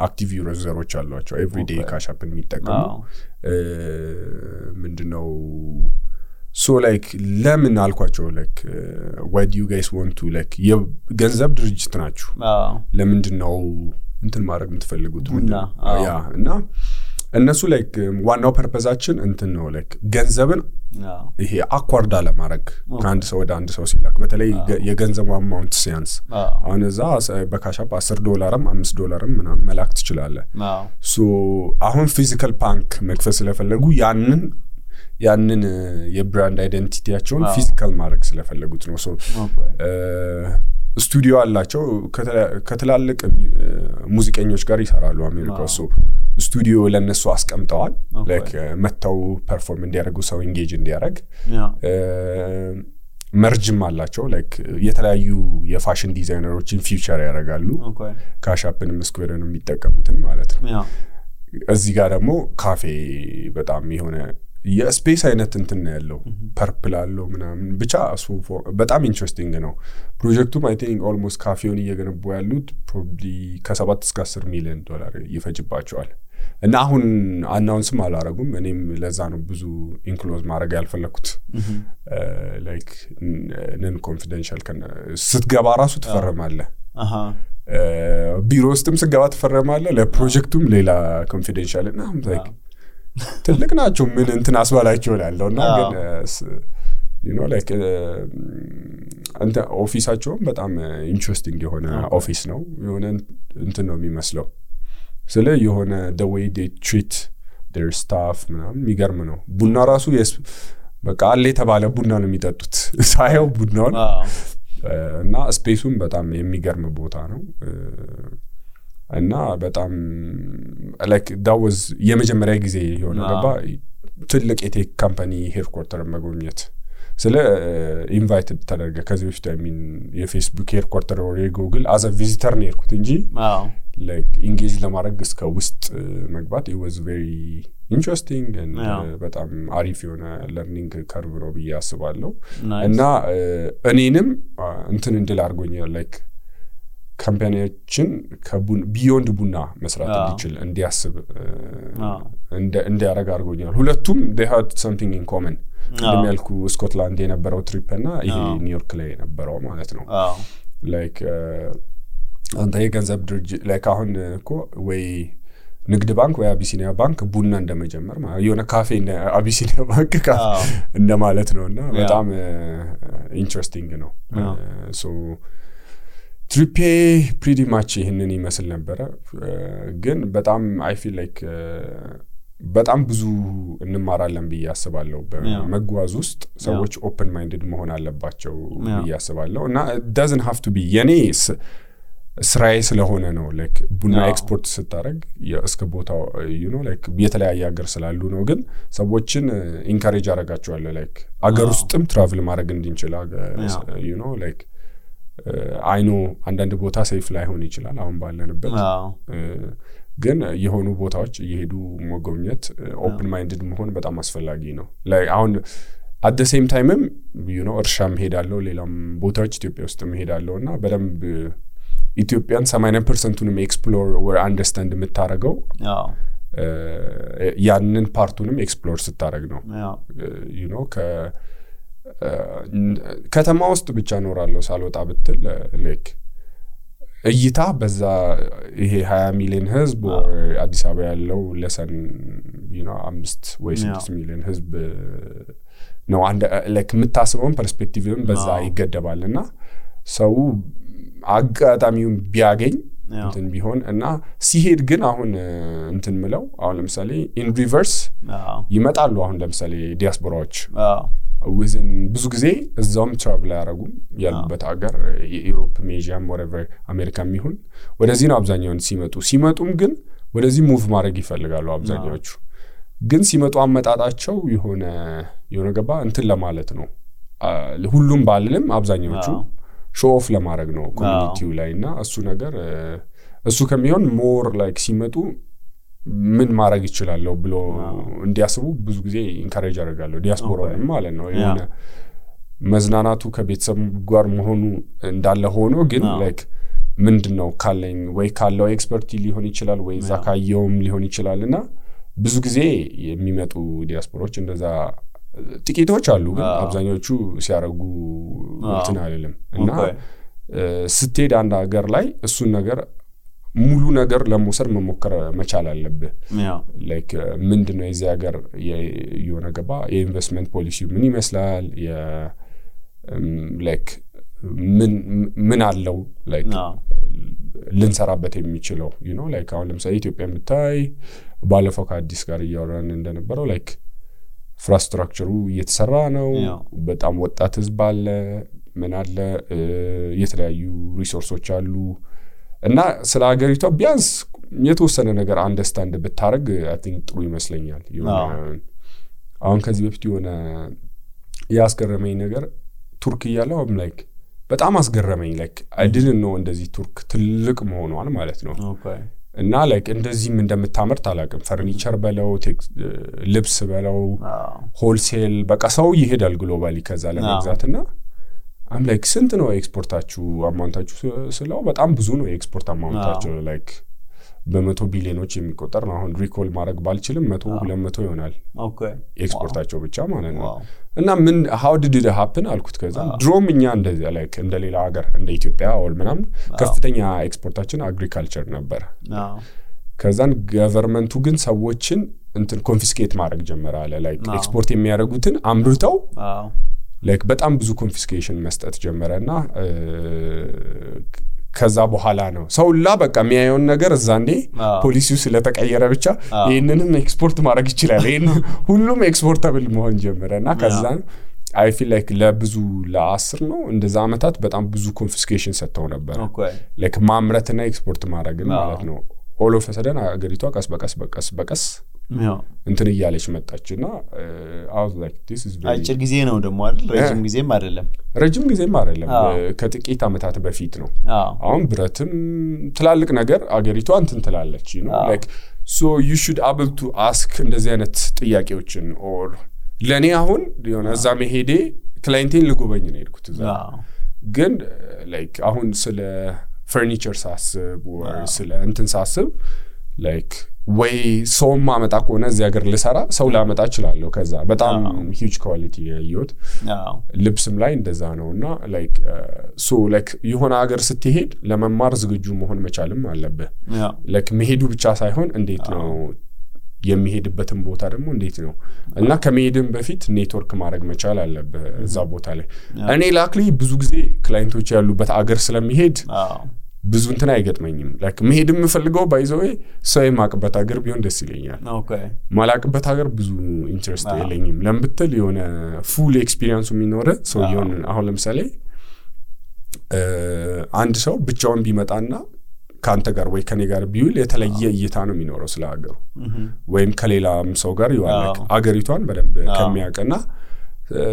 አክቲቭ ዩዘሮች አሏቸው ኤቭሪ ዴይ ካሻፕን የሚጠቀሙ ምንድነው so like ለምን አልኳቸው like why do you guys want to like የገንዘብ ድርጅት ናችሁ ለምንድነው እንትን ማድረግ የምትፈልጉት ያ እና እነሱ ላይክ ዋናው ፐርፐዛችን እንትን ነው ላይክ ገንዘብን ይሄ አኳርዳ ለማድረግ ከአንድ ሰው ወደ አንድ ሰው ሲላክ በተለይ የገንዘቡ አማውንት ሲያንስ አሁን እዛ በካሻፕ $10 $5 ምናምን መላክ ትችላለህ ሶ አሁን ፊዚካል ባንክ መክፈት ስለፈለጉ ያንን የብራንድ አይደንቲቲያቸውን ፊዚካል ማድረግ ስለፈለጉት ነው ሶ ስቱዲዮ አላቸው ከተላልቅ ሙዚቀኞች ጋር ይሰራሉ አሜሪካ ሶ ስቱዲዮ ለነሱ አስቀምጠዋል ላይክ መተው ፐርፎርም እንዲያደርጉ ሰው ኢንጌጅ እንዲያደርግ መርጅም አላቸው ላይክ የተለያዩ የፋሽን ዲዛይነሮችን ፊውቸር ያደርጋሉ ካሻፕንም ስኩዌርንም የሚጠቀሙትን ማለት ነው እዚህ ጋር ደግሞ ካፌ በጣም የሆነ የስፔስ አይነት እንትን ነው ያለው ፐርፕል አለው ምናምን ብቻ እሱ በጣም ኢንትረስቲንግ ነው ፕሮጀክቱም አይ ቲንክ ኦልሞስት ካፌውን እየገነቡ ያሉት ፕሮባብሊ ከ7 እስከ $10 ሚሊዮን ይፈጅባቸዋል እና አሁን አናውንስም አላረጉም እኔም ለዛ ነው ብዙ ኢንክሎዝ ማድረግ ያልፈለኩት ላይክ ነን ኮንፊደንሻል ስትገባ ራሱ ትፈርማለህ ቢሮ ውስጥም ስትገባ ትፈርማለህ ለፕሮጀክቱም ሌላ ኮንፊደንሻል እና ላይክ ትልቅ ናቸው ምን እንትን አስባላቸው ያለውና ግን you know like አንተ ኦፊሳቸውም በጣም ኢንትረስቲንግ የሆነ ኦፊስ ነው የሆነ እንትን ነው የሚመስለው ስለ የሆነ the way they treat their staff ምናምን የሚገርም ነው ቡና ራሱ በቃ አለ የተባለ ቡና ነው የሚጠጡት ሳይው ቡናው እና ስፔሱም በጣም የሚገርም ቦታ ነው እና በጣም like that was የመጀመሪያ ጊዜ የሆነ ገባ ትልቅ የቴክ ካምፓኒ ሄድኳርተር መጎብኘት ስለ ኢንቫይትድ ተደረገ ከዚህ በፊት የፌስቡክ ሄድኳርተር ወይ ጉግል as a visitor ነው የሄድኩት እንጂ like engage ለማድረግ እስከ ውስጥ መግባት it was very interesting and በጣም አሪፍ የሆነ learning curve ነው ብዬ አስባለሁ እና እኔንም እንትን እንድል አድርጎኛል like ካምፓኒያችን ቢዮንድ ቡና መስራት እንዲችል እንዲያስብ እንዲያረጋ አድርጎኛል ሁለቱም they had something in common እንደሚያልኩ ስኮትላንድ የነበረው ትሪፕ እና ይሄ ኒውዮርክ ላይ የነበረው ማለት ነው like አንተ የገንዘብ ድርጅት like አሁን እኮ ወይ ንግድ ባንክ ወይ አቢሲኒያ ባንክ ቡና እንደመጀመር ማለት የሆነ ካፌ እንደ አቢሲኒያ ባንክ እንደማለት ነውና በጣም ኢንትረስቲንግ ነው so ትሪፔ pretty much ይሄንን ይመስል ነበር ግን በጣም I feel like በጣም ብዙ እንማራለን ብዬ አስባለሁ በመጓዝ ውስጥ ሰዎች ኦፕን ማይንድድ መሆን አለባቸው ብዬ አስባለሁ እና doesn't have to be የኔ ስራዬ ስለሆነ ነው like ቡና ኤክስፖርት ስታረግ እስከ ቦታው you know like የተለያየ ሀገር ስላሉ ነው ግን ሰዎችን ኢንካሬጅ አረጋቸዋለሁ like አገር ውስጥም ትራቭል ማድረግ እንድንችል you know like I know አንዳንድ ቦታ ሴፍ ላይሆን ይችላል አሁን ባለንበት ግን የሆኑ ቦታዎች እየሄዱ መጎብኘት ኦፕን ማይንድድ መሆን በጣም አስፈላጊ ነው like አሁን at the same time you know እርሻም ሄዳለሁ ሌላም ቦታዎች ኢትዮጵያ ውስጥም ሄዳለሁና በደንብ ኢትዮጵያን 80%ንም ኤክስፕሎር or አንደርስታንድ የምታረገው ያንን ፓርቱንም ኤክስፕሎር ስታረግ ነው you know ከተማ ውስጥ ብቻ ኖራለሁ ሳልወጣ ብትል like እይታ በዛ ይሄ 20 ሚሊዮን ህዝብ or አዲስ አበባ ያለው ለሰን you know 5 ወይ 6 ሚሊዮን ህዝብ ነው አንድ like የምታስበውን ፐርስፔክቲቭም በዛ ይገደባልና ሰው አጋጣሚውን ቢያገኝ እንትን ቢሆን እና ሲሄድ ግን አሁን እንትን ምለው አሁን ለምሳሌ ኢን ሪቨርስ ይመጣሉ አሁን ለምሳሌ ዲያስፖራዎች within ብዙ ጊዜ እዛውም ትራቭል ያደርጉም ያሉበት ሀገር ዩሮፕ ሜዥያም whatever አሜሪካም ይሁን ወደዚህ ነው አብዛኛውን ሲመጡም ግን ወደዚህ ሙቭ ማድረግ ይፈልጋሉ አብዛኛዎቹ ግን ሲመጡ አመጣጣቸው የሆነ ገባ እንትን ለማለት ነው ሁሉም ባልልም አብዛኛዎቹ ሾው ኦፍ ለማድረግ ነው ኮሚኒቲው ላይና እሱ ነገር እሱ ከሚሆን ሞር ላይክ ሲመጡ ምን ማድረግ ይችላል ብሎ እንዲያስቡ ብዙ ጊዜ ኢንካሬጅ አደርጋለሁ ዲያስፖራውን ማለት ነው የሆነ መዝናናቱ ከቤተሰብ ጋር መሆኑ እንዳለ ሆኖ ግን ላይክ ምንድነው ካለኝ ወይ ካለው ኤክስፐርቲ ሊሆን ይችላል ወይ ዛካየውም ሊሆን ይችላልና ብዙ ጊዜ የሚመጡ ዲያስፖራዎች እንደዛ ጥቂቶች አሉ ግን አብዛኞቹ ሲያረጉ እንትን አይደለም እና ስትሄድ አንድ ሀገር ላይ እሱን ነገር ሙሉ ነገር ለመውሰድ መሞከር መቻል አለብህ ላይክ ምንድነው የዚህ ሀገር የሆነ ገባ የኢንቨስትመንት ፖሊሲ ምን ይመስላል ላይክ ምን አለው ላይክ ልንሰራበት የሚችለው you know like አሁን ለምሳሌ ኢትዮጵያ ብታይ ባለፈው ከአዲስ ጋር እያወራን እንደነበረው ላይክ ኢንፍራስትራክቸሩ እየተሰራ ነው በጣም ወጣት ህዝብ አለ ምን አለ የተለያዩ ሪሶርሶች አሉ እና ስለ ሀገሪቷ ቢያንስ የተወሰነ ነገር አንደርስታንድ ብታረግ I think ጥሩ ይመስለኛል አሁን ከዚህ በፊት የሆነ ያስገረመኝ ነገር ቱርክ ያለው like በጣም አስገረመኝ like I didn't know እንደዚህ ቱርክ ትልቅ መሆኗን ማለት ነው እና like እንደዚህም እንደምታመርት አላቅም ፈርኒቸር በለው ልብስ በለው ሆልሴል በቃ ሰው ይሄዳል ግሎባሊ ከዛ ለመግዛትና I'm like ስንት ነው ኤክስፖርታችሁ አማውንታችሁ ስለው በጣም ብዙ ነው ኤክስፖርት አማውንታችሁ like በመቶ ቢሊዮኖች የሚቆጠር ነው አሁን ሪኮል ማድረግ ባልችልም 100-200 ይሆናል ኤክስፖርታቸው ብቻ ማለት ነው እና ምን how did it happen አልኩት ከዛ ድሮም እኛ እንደዚህ like እንደሌላ ሀገር እንደ ኢትዮጵያ or ምናምን ከፍተኛ ኤክስፖርታችን አግሪካልቸር ነበር ከዛን ገቨርንመንቱ ግን ሰዎችን እንትን ኮንፊስኬት ማድረግ ጀመረ አለ like ኤክስፖርት የሚያደርጉትን አምርተው like በጣም ብዙ ኮንፊስኬሽን መስጠት ጀመረና ከዛ በኋላ ነው ሰውላ በቃ የሚያየውን ነገር እዛንዴ ፖሊሲው ስለተቀየረ ብቻ ይሄንንም ኤክስፖርት ማድረግ ይችላል ይሄን ሁሉም ኤክስፖርታብል መሆን ጀመረና ከዛን I feel like ለብዙ ለ10 ነው እንደዛ አመታት በጣም ብዙ ኮንፊስኬሽን ሰጥተው ነበር like ማምረትና ኤክስፖርት ማድረግ ማለት ነው all of a sudden አገሪቷ ቀስ በቀስ እንትን እያለች መጣችና I was like this is very አጭር ጊዜ ነው ደሞ አይደል ረጅም ጊዜም አይደለም ከጥቂት አመታት በፊት ነው አሁን ብረትም ትላልቅ ነገር አገሪቷ እንትን ትላለች you know like so you should able to ask እንደዚህ አይነት ጥያቄዎችን or ለኔ አሁን የሆነ እዛ መሄዴ ክላይንቴን ልጎበኝ ነው ሄድኩት እዛ ግን like አሁን ስለ ፈርኒቸር ሳስብ or ስለ እንትን ሳስብ like ወይ ሶማ መጣ ቆነ እዚህ ሀገር ልሰራ ሰው ላመጣ ይችላልው ከዛ በጣም huge quality ያዩት ልብስም ላይ እንደዛ ነውና like so like የሆነ ሀገር ስትሄድ ለመማር ዝግጁ መሆን መቻልም አለበት like መሄዱ ብቻ ሳይሆን እንዴት ነው የሚሄድበትን ቦታ ደግሞ እንዴት ነው እና ከመሄድም በፊት ኔትወርክ ማድረግ መቻል አለበት እዛ ቦታ ላይ እኔ ላክሊ ብዙ ጊዜ ክላይንቶች ያሉበት ሀገር ስለሚሄድ ብዙ እንትን አይገጥመኝም ላይክ መሄድ የምፈልገው ባይዘው ሰው የማቅበት ሀገር ቢሆን ደስ ይለኛል ኦኬ ማላቅበት ሀገር ብዙ ኢንትረስት የለኝም ለምብትል የሆነ ፉል ኤክስፒሪየንስ የሚኖር ሰው ይሆን አሁን ለምሳሌ አንድ ሰው ብቻውን ቢመጣና ካንተ ጋር ወይ ከኔ ጋር ቢውል የተለየ እይታ ነው የሚኖረው ስለ ሀገሩ ወይም ከሌላም ሰው ጋር ይዋላክ ሀገሪቷን በደንብ ከሚያቀና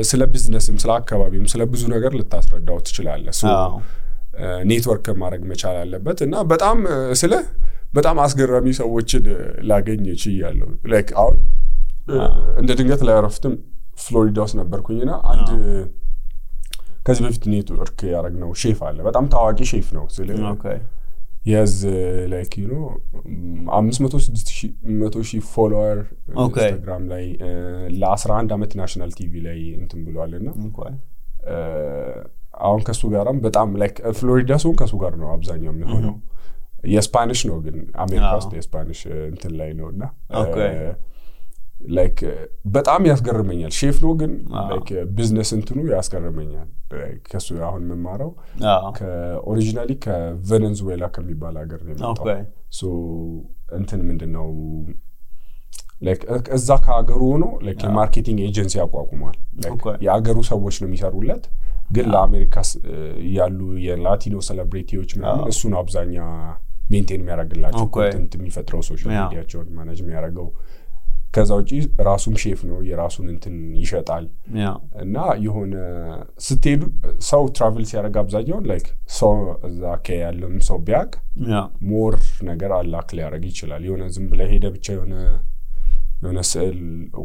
ስለ ቢዝነስም ስለ አካባቢም ስለ ብዙ ነገር ልታስረዳው ትችላለህ ሶ ኔትወርክ ማድረግ መቻል አለበት እና በጣም አስገራሚ ሰዎችን ላገኝ ይችላል ላይክ አሁን እንደ ድንገት ላይ አረፍትም ፍሎሪዳ ውስጥ ነበርኩኝና አንድ ከዚህ በፊት ኔትወርክ ያረግነው ሼፍ አለ በጣም ታዋቂ ሼፍ ነው ስለ ኦኬ yes like you know 500,000 ፎሎወር ኢንስታግራም ላይ ለ11 አመት ናሽናል ቲቪ ላይ እንትን ብሏልና አሁን ከሱ ጋርም በጣም ላይክ ፍሎሪዳ ሶን ከሱ ጋር ነው አብዛኛው የሚሆነው የስፓኒሽ ነው ግን አሜሪካ ውስጥ የስፓኒሽ እንትን ላይ ነውና ላይክ በጣም ያስገርመኛል ሼፍ ነው ግን ላይክ ቢዝነስ እንትኑ ያስገርመኛል ከሱ አሁን መማራው ከኦሪጂናሊ ከቬኔዙዌላ ከሚባል ሀገር ነው የመጣው ሶ እንትን ምንድነው ላይክ እዛ ከሀገሩ ሆኖ ላይክ የማርኬቲንግ ኤጀንሲ አቋቁሟል ላይክ የሀገሩ ሰዎች ነው የሚሰሩለት ግን ለአሜሪካ ያሉ የላቲኖ ሴሌብሪቲዎች ምናምን እሱ ነው አብዛኛ ሜንቴን የሚያደርግላቸው ኮንቴንት የሚፈጥረው ሶሻል ሚዲያቸውን ማኔጅ የሚያደርገው ከዛው ጪ ራሱም ሼፍ ነው የራሱን እንትን ይሸጣል እና የሆነ ስትሄዱ ሰው ትራቨል ሲያደርግ አብዛኛው ላይክ ሰው እዛ ከያለም ሰው ቢያቅ ሞር ነገር አላክ ሊያደርግ ይችላል የሆነ ዝም ብለ ሄደ ብቻ የሆነ ስዕል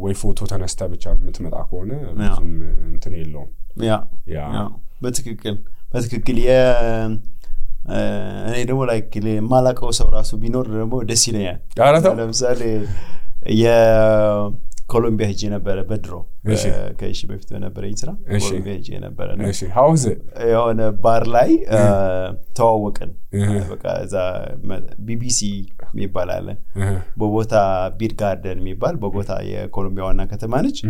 ወይ ፎቶ ተነስታ ብቻ የምትመጣ ከሆነ ብዙም እንትን የለውም ያ በትክክል እኔ ደግሞ ላይክ ማላቀው ሰው ራሱ ቢኖር ደግሞ ደስ ይለኛል ለምሳሌ የኮሎምቢያ ሄጄ ነበር በድሮ ከሺ በፊት በነበረ ይስራ ኮሎምቢያ ሄጄ ነበር ነው እሺ how is it የሆነ ባር ላይ ተዋወቅን በቃ እዛ ቢቢሲ የሚባል አለ ቦጎታ ቢር ጋርደን የሚባል ቦጎታ የኮሎምቢያ ዋና ከተማ ነች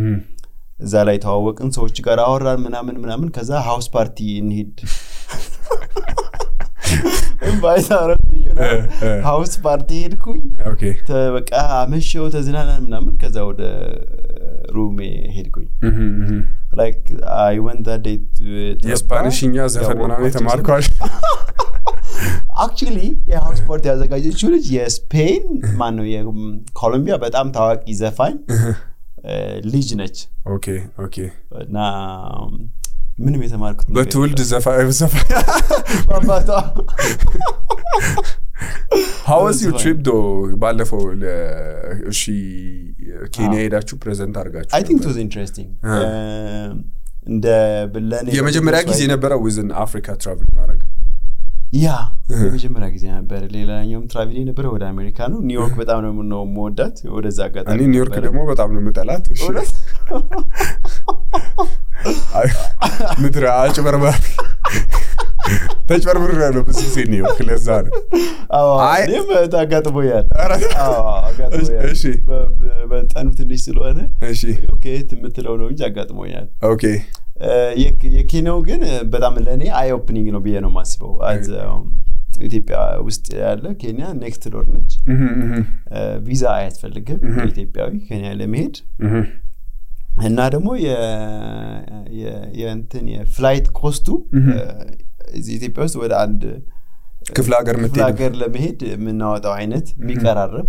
እዛ ላይ ተዋወቅን ሰዎች ጋር አወራን ምናምን ከዛ ሃውስ ፓርቲ እንሂድ ባይታረኩኝ ሃውስ ፓርቲ ሄድኩኝ ኦኬ በቃ አመሸው ተዝናናን ምናምን ከዛ ወደ ሩሜ ሄድኩኝ like I went that day to የስፓኒሽኛ ዘፈን ምናምን ተማርኳል actually የሃውስ ፓርቲ ያዘጋጀችው ልጅ የስፔን ማን ነው የኮሎምቢያ በጣም ታዋቂ ዘፋኝ ልጅ ነች ኦኬ እና ምንም የተማርኩት በትውልድ ዘፋኝ ባባታ how was your trip though ባለፈው እሺ ኬንያ ሄዳችሁ ፕሬዘንት አድርጋችሁ I think it was interesting እንደ ብለኔ የመጀመሪያ ጊዜ ነበር within Africa travel ማድረግ የመጀመሪያ ጊዜ ነበር ሌላኛውም ትራቭል ነበር ወደ አሜሪካ ነው ኒውዮርክ በጣም ነው የምወዳት ወደዛ አጋጣሚ እኔ ኒውዮርክ ደግሞ በጣም ነው የምጠላት እሺ ምድር አጭበርባሪ ተጭበርብር ነው ብዙ ጊዜ ነው ክለዛ ነው እኔም ታጋጥሞኛል አጋጥሞኛል እሺ በጣም ትንሽ ስለሆነ እሺ ኦኬ ትምትለው ነው እንጂ አጋጥሞኛል ኦኬ የኬንያው ግን በጣም ለኔ አይ ኦፕኒንግ ነው ብዬ ነው ማስበው ኢትዮጵያ ውስጥ ያለ ኬንያ ኔክስት ዶር ነች ቪዛ አያስፈልግም ኢትዮጵያዊ ኬንያ ለመሄድ እና ደግሞ የእንትን የፍላይት ኮስቱ ኢትዮጵያ ውስጥ ወደ አንድ ክፍለ ሀገር ለመሄድ የምናወጣው አይነት የሚቀራረብ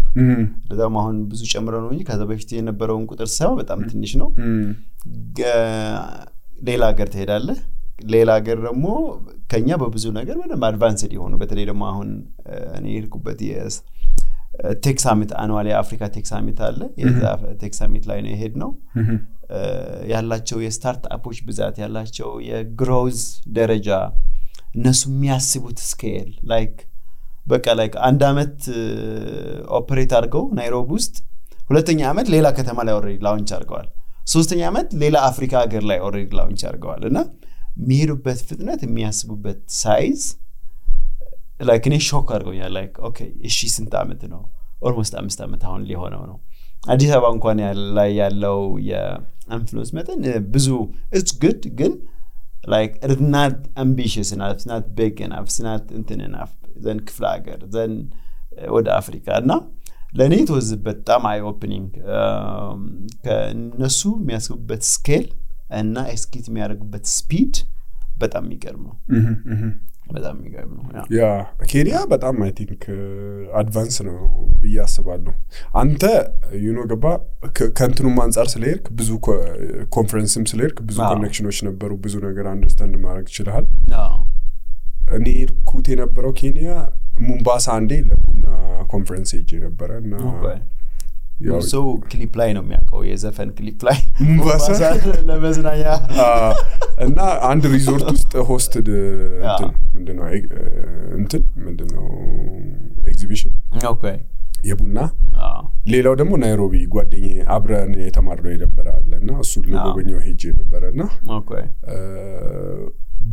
ለዛም አሁን ብዙ ጨምረው ነው እንጂ ከዛ በፊት የነበረውን ቁጥር ሰው በጣም ትንሽ ነው ሌላ ሀገር ትሄዳለህ ሌላ ሀገር ደግሞ ከኛ በብዙ ነገር ምንም አድቫንስድ ይሆኑ በተለይ ደግሞ አሁን እኔ ሄድኩበት ቴክ ሳሚት አኑዋል የአፍሪካ ቴክ ሳሚት አለ የዛ ቴክ ሳሚት ላይ ነው የሄድነው ያላቸው የስታርትአፖች ብዛት ያላቸው የግሮዝ ደረጃ እነሱ የሚያስቡት ስኬል ላይክ በቃ ላይክ አንድ አመት ኦፕሬት አድርገው ናይሮቢ ውስጥ ሁለተኛ አመት ሌላ ከተማ ላይ ኦሬዲ ላውንች አድርገዋል ሶስተኛ አመት ሌላ አፍሪካ ሀገር ላይ ኦሬዲ ላውንች አድርገዋል እና የሚሄዱበት ፍጥነት የሚያስቡበት ሳይዝ ላይክ እኔ ሾክ አድርጎኛል ላይክ ኦኬ እሺ ስንት አመት ነው ኦልሞስት 5 አመት አሁን ሊሆነው ነው አዲስ አበባ እንኳን ላይ ያለው የኢንፍሉዌንስ መጠን ብዙ it's good ግን like it's not ambitious enough, it's not big enough, it's not enough then ክፍለ ሀገር then ወደ አፍሪካ እና ለኔ it was በጣም eye opening ከነሱ የሚያስቡበት ስኬል እና ኤክስኪዩት የሚያደርጉበት ስፒድ በጣም የሚገርም ነው በጣም የሚገርም ነው ያ ኬንያ በጣም አይ ቲንክ አድቫንስ ነው በያስባለሁ አንተ ገባ ከንትኑ አንፃር ስለሄድክ ብዙ ኮንፈረንስም ስለሄድክ ብዙ ኮኔክሽኖች ነበሩ ብዙ ነገር አንደርስታንድ ማድረግ ይችላል እኔ ርኩት የነበረው ኬንያ ሙምባሳ አንዴ ለቡና ኮንፈረንስ ሄጄ ነበርና ሶ ክሊፕ ላይ ነው የሚያውቀው የዘፈን ክሊፕ ላይ ሙምባሳ ለመዝናኛ እና አንድ ሪዞርት ውስጥ ሆስትድ ምንድነው ኤግዚቢሽን ኦኬ የቡና ሌላው ደግሞ ናይሮቢ ጓደኛዬ አብረን የተማርነው የነበረአለና እሱ ለጎበኛው ሄጄ ነበርና ኦኬ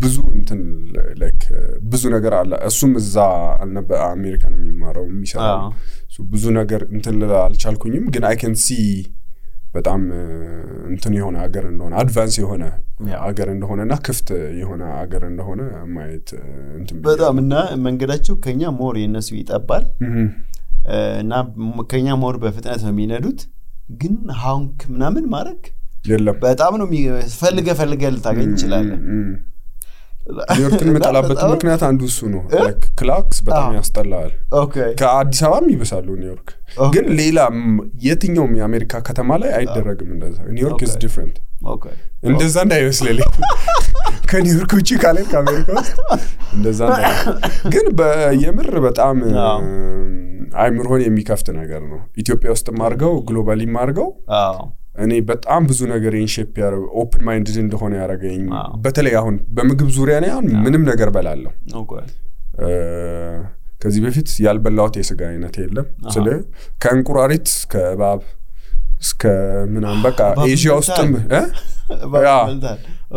ብዙ ላይክ ብዙ ነገር አለ እሱም እዛ አልነበረ አሜሪካን የሚማረው የሚሰራው ብዙ ነገር አልቻልኩኝም ግን I can see በጣም የሆነ ሀገር እንደሆነ አድቫንስ የሆነ ሀገር እንደሆነና ክፍት የሆነ ሀገር እንደሆነ ማየት በጣም እና መንገዳቸው ከኛ ሞር የነሱ ይጣባል እና ከኛ ሞር በፍጥነት ነው የሚነዱት ግን ሃንክ ምናምን ማረክ የለም በጣም ነው ፈልገ ልታገኝ ይችላል ኒውዮርክን መጣላበት ምክንያት አንዱ እሱ ነው ላይክ ክላክስ በጣም ያስጠላል ኦኬ ከአዲስ አበባም ይበሳሉ ኒውዮርክ ግን ሌላ የትኛውም የአሜሪካ ከተማ ላይ አይደረግም እንደዛ ኒውዮርክ is different ኦኬ እንደዛ እንዳይመስልልኝ ከኒውዮርክ ውጪ ካለ ከአሜሪካ እንደዛ ግን በየምር በጣም አይምሮን የሚከፍት ነገር ነው ኢትዮጵያ ውስጥ ማርገው ግሎባሊ ማርገው እኔ በጣም ብዙ ነገር ኢንሼፕ ያረው ኦፕን ማይንድድ እንደሆነ ያረጋኝ በተለይ አሁን በምግብ ዙሪያ ላይ አሁን ምንም ነገር በላለው ኦኬ ከዚህ በፊት ያልበላውት የስጋ አይነት የለም ስለ ከእንቁራሪት ከእባብ እስከ ምናምን በቃ ኤዥያ ውስጥም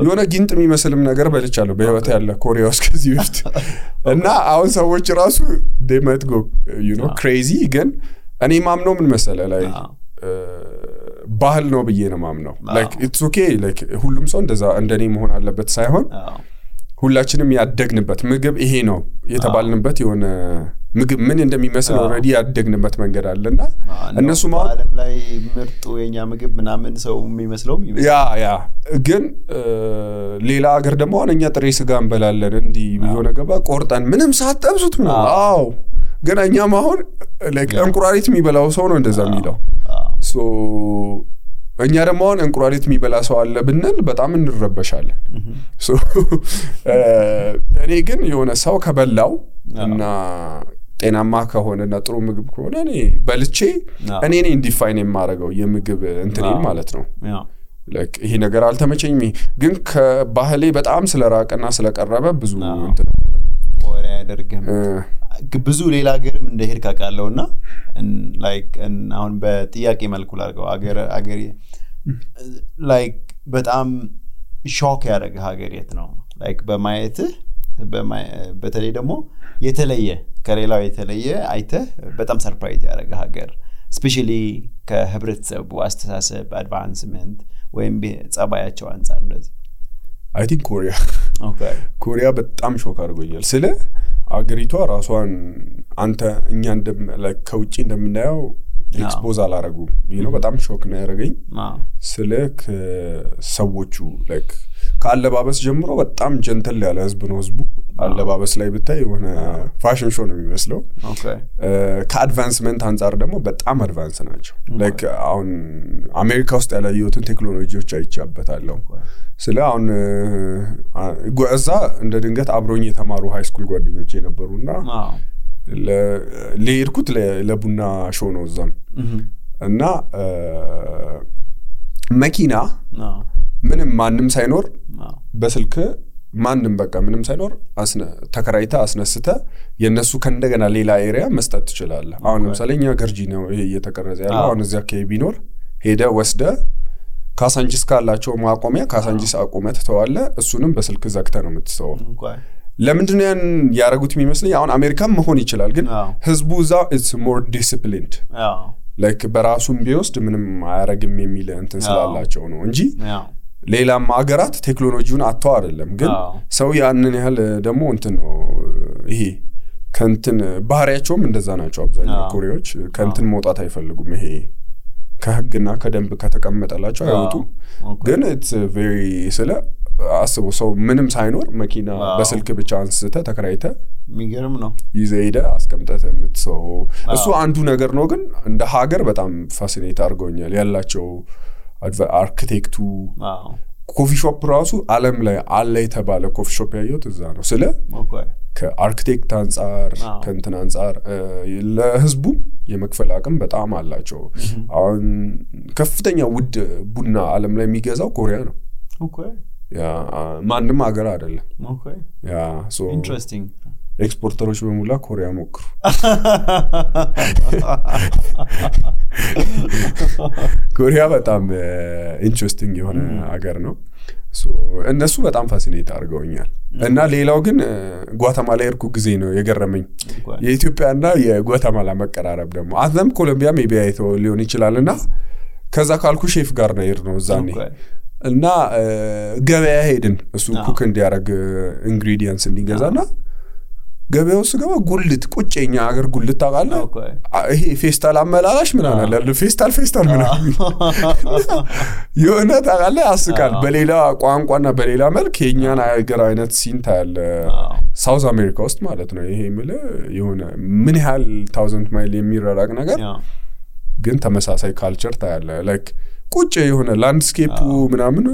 የሆነ ጊንጥ የሚመስልም ነገር በልቻለሁ በህይወት ያለ ኮሪያ ውስጥ ከዚህ በፊት እና አሁን ሰዎች ራሱ they might go crazy ግን እኔ ማምነው ምን መሰለ ላይ ባህል ነው ብዬ ነው ማምነው like it's okay like ሁሉም ሰው እንደዛ እንደኔ መሆን አለበት ሳይሆን ሁላችንም ያደግንበት ምግብ ይሄ ነው የተባልንበት የሆነ ምግብ ምን እንደሚመስል ኦሬዲ ያደግንበት መንገድ አለና እነሱ ዓለም ላይ ምርጡ የኛ ምግብ ምናምን ሰው የሚመስለው ያ ግን ሌላ ሀገር ደግሞ አሁንኛ ጥሬ ስጋ እንበላለን እንዲ የሆነ ገባ ቆርጠን ምንም ሳትጠብሱት ነው አዎ ግን እኛም አሁን like እንቁራሪት የሚበላው ሰው ነው እንደዛ የሚለው so እኛ ደግሞ አሁን እንቁራሪት የሚበላ ሰው አለ ብንል በጣም እንረበሻለን so እኔ ግን የሆነ ሰው ከበላው እና ጤናማ ከሆነና ጥሩ ምግብ ከሆነ እኔ በልቼ እኔ ነኝ ዲፋይን የማረጋው የምግብ እንትኔን ማለት ነው like ይሄ ነገር አልተመቸኝም ግን ከባህሌ በጣም ስለራቀና ስለቀረበ ብዙ እንትን አይደለም ወሬ ያደርገም ብዙ ሌላ ሀገርም እንደሄድክ አቃለውና like አሁን በጥያቄ መልኩ ላርገው ሀገር like በጣም ሾክ ያደረገ ሀገር የት ነው like በማየት በተለይ ደግሞ የተለየ ከሌላው የተለየ አይተህ በጣም ሰርፕራይዝ ያደረገ ሀገር especially ከህብረተሰቡ አስተሳሰብ አድቫንስመንት ወይም ጸባያቸው አንፃር እንደዚህ I think Korea okay ኮሪያ በጣም ሾክ አድርጎኛል ስለ አገሪቷ ራሷን አንተ እኛ like ከውጪ እንደምናየው ኤክስፖዝ አላረጉ በጣም ሾክ ነው ያረጋኝ ስለክ ሰዎቹ like ከአለባበስ ጀምሮ በጣም ጀንተል ያለ ህዝብ ነው ህዝቡ አለባበስ ላይ ብታይ የሆነ ፋሽን ሾው ነው የሚመስለው ኦኬ ከአድቫንስመንት አንፃር ደግሞ በጣም አድቫንስ ናቸው like አሁን አሜሪካ ውስጥ ያለዩትን ቴክኖሎጂዎች አይቻበታለሁ ስለ አሁን እዛ እንደ ድንገት አብሮኝ የተማሩ ሃይ ስኩል ጓደኞቼ ነበሩና ለሄድኩት ለቡና ሾው ነው እዛም እና መኪና ምንም ማንም ሳይኖር በስልክ ማንም በቃ ምንም ሳይኖር ተከራይታ አስነስተ የነሱ ከእንደገና ሌላ ኤሪያ መስጠት ትችላለህ አሁን ለምሳሌ እኛ ገርጂ ነው ይሄ እየተቀረጸ ያለው አሁን እዚያ ከቢኖር ሄደ ወስደ ካሳንጂስ ካላቸው ማቆሚያ ካሳንጂስ አቆመት ተዋለ እሱንም በስልክ ዘግተ ነው የምትሰው ለምንድነው ያን ያረጉት የሚመስለኝ አሁን አሜሪካም መሆን ይችላል ግን ህዝቡ ዛ it's more disciplined like በራሱም ቢወስድ ምንም አያረግም የሚል እንትን ስላላቸው ነው እንጂ ሌላም ሀገራት ቴክኖሎጂውን አጥተው አይደለም ግን ሰው ያንን ያህል ደግሞ እንትን ነው ይሄ ከንትን ባህሪያቸውም እንደዛ ናቸው አብዛኛው ኮሪያዎች ከንትን መውጣት አይፈልጉም ይሄ ከህግና ከደንብ ከተቀመጠላቸው አይወጡ ግን it's very ስለ አስቦ ሰው ምንም ሳይኖር መኪና በስልክ ብቻ አንስተ ተከራይተ የሚገርም ነው ይዘይደ አስቀምጠተ የምትሰው እሱ አንዱ ነገር ነው ግን እንደ ሀገር በጣም ፋሲኔት አድርጎኛል ያላቸው አርኪቴክቱ ኮፊ ሾፕ ራሱ ዓለም ላይ አለ የተባለ ኮፊ ሾፕ ያየሁት እዛ ነው ስለ ከአርኪቴክት አንፃር ከእንትን አንፃር ለህዝቡ የመክፈል አቅም በጣም አላቸው አሁን ከፍተኛ ውድ ቡና ዓለም ላይ የሚገዛው ኮሪያ ነው ያ ማንንም ሀገር አይደለም ያ ሶ ኢንትረስቲንግ ኤክስፖርተሮች በሙላ ኮሪያ ሞክሩ ኮሪያ በጣም ኢንትረስቲንግ የሆነ ሀገር ነው ሶ እነሱ በጣም ፋሲኔት አድርገውኛል እና ሌላው ግን ጓተማላ የርኩ ጊዜ ነው የገረመኝ የኢትዮጵያና የጓተማላ መቀራረብ ደግሞ አዘም ኮሎምቢያ ሜቢ አይቶ ሊሆን ይችላልና ከዛ ካልኩ ሼፍ ጋር ነው ይር ነው ዛኔ እና ገበያ ሄድን እሱ ኩክ እንዲያረግ ኢንግሪዲየንትስ እንዲገዛና ገበያው ስገባ ጉልት ቁጭኛ ሀገር ጉልት ታቃለ ይሄ ፌስታል አመላላሽ ምን አለ ፌስታል ምን የሆነ ታቃለ ያስቃል በሌላ ቋንቋና በሌላ መልክ የኛን ሀገር አይነት ሲንታ ያለ ሳውዝ አሜሪካ ውስጥ ማለት ነው ይሄ ምለ የሆነ ምን ያህል 1000 ማይል የሚራራቅ ነገር ግን ተመሳሳይ ካልቸር ታያለ ላይክ ቁጭ የሆነ ላንድስኬፑ ምናምን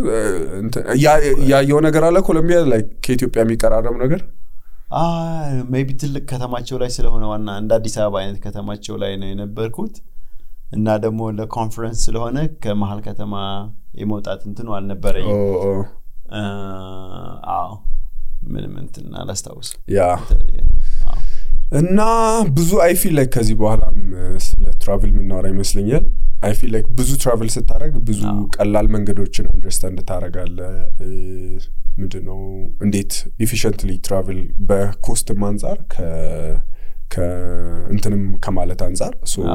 ያየው ነገር አለ ኮሎምቢያ ላይክ ከኢትዮጵያ የሚቀራረብ ነገር ሜቢ ትልቅ ከተማቸው ላይ ስለሆነ ዋና እንደ አዲስ አበባ አይነት ከተማቸው ላይ ነው የነበርኩት እና ደግሞ ለኮንፈረንስ ስለሆነ ከመሃል ከተማ የመውጣት እንትኑ አልነበረኝ ምንም እንትን አላስታውስ ያ እና ብዙ አይ ፊል ላይክ ከዚህ በኋላም ስለ ትራቭል ምናወራ ይመስለኛል አይ ፊል ላይክ ብዙ ትራቭል ስታረግ ብዙ ቀላል መንገዶችን አንደርስታንድ ታረጋለ ምንድነው እንዴት ኤፊሺየንትሊ ትራቭል በኮስት አንፃር ከእንተንም ከማለት አንፃር ሶ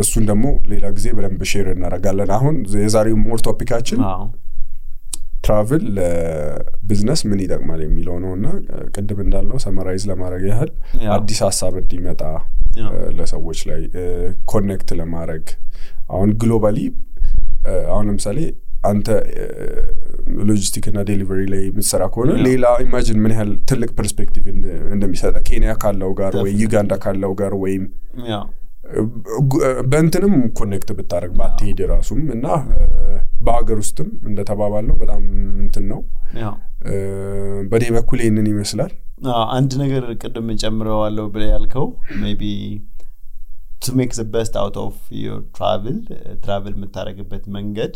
እሱን ደግሞ ሌላ ጊዜ በደንብ ሼር እናረጋለን አሁን የዛሬው ሞር ቶፒካችን ትራቭል ለቢዝነስ ምን ይጠቅማል የሚለው ነውና ቅድም እንዳልነው ሰመራይዝ ለማድረግ ያህል አዲስ ሐሳብ እንዲመጣ ለሰዎች ላይ ኮኔክት ለማድረግ አሁን ግሎባሊ አሁን ለምሳሌ አንተ ሎጂስቲክ እና ዴሊቨሪ ላይ ምትሰራ ከሆነ ሌላ ኢማጂን ምን ያህል ትልቅ ፐርስፔክቲቭ እንደሚሰጣ ኬንያ ካለው ጋር ወይ ዩጋንዳ ካለው ጋር ወይም በእንትንም ኮኔክት ብታረግ ባትሄድ ራሱም እና በአገር ውስጥም እንደተባባለው በጣም እንትን ነው በኔ በኩል ይሄንን ይመስላል አንድ ነገር ቅድም ጨምረዋለሁ ብለ ያልከው ሜቢ to make the best out of your travel የምታረግበት መንገድ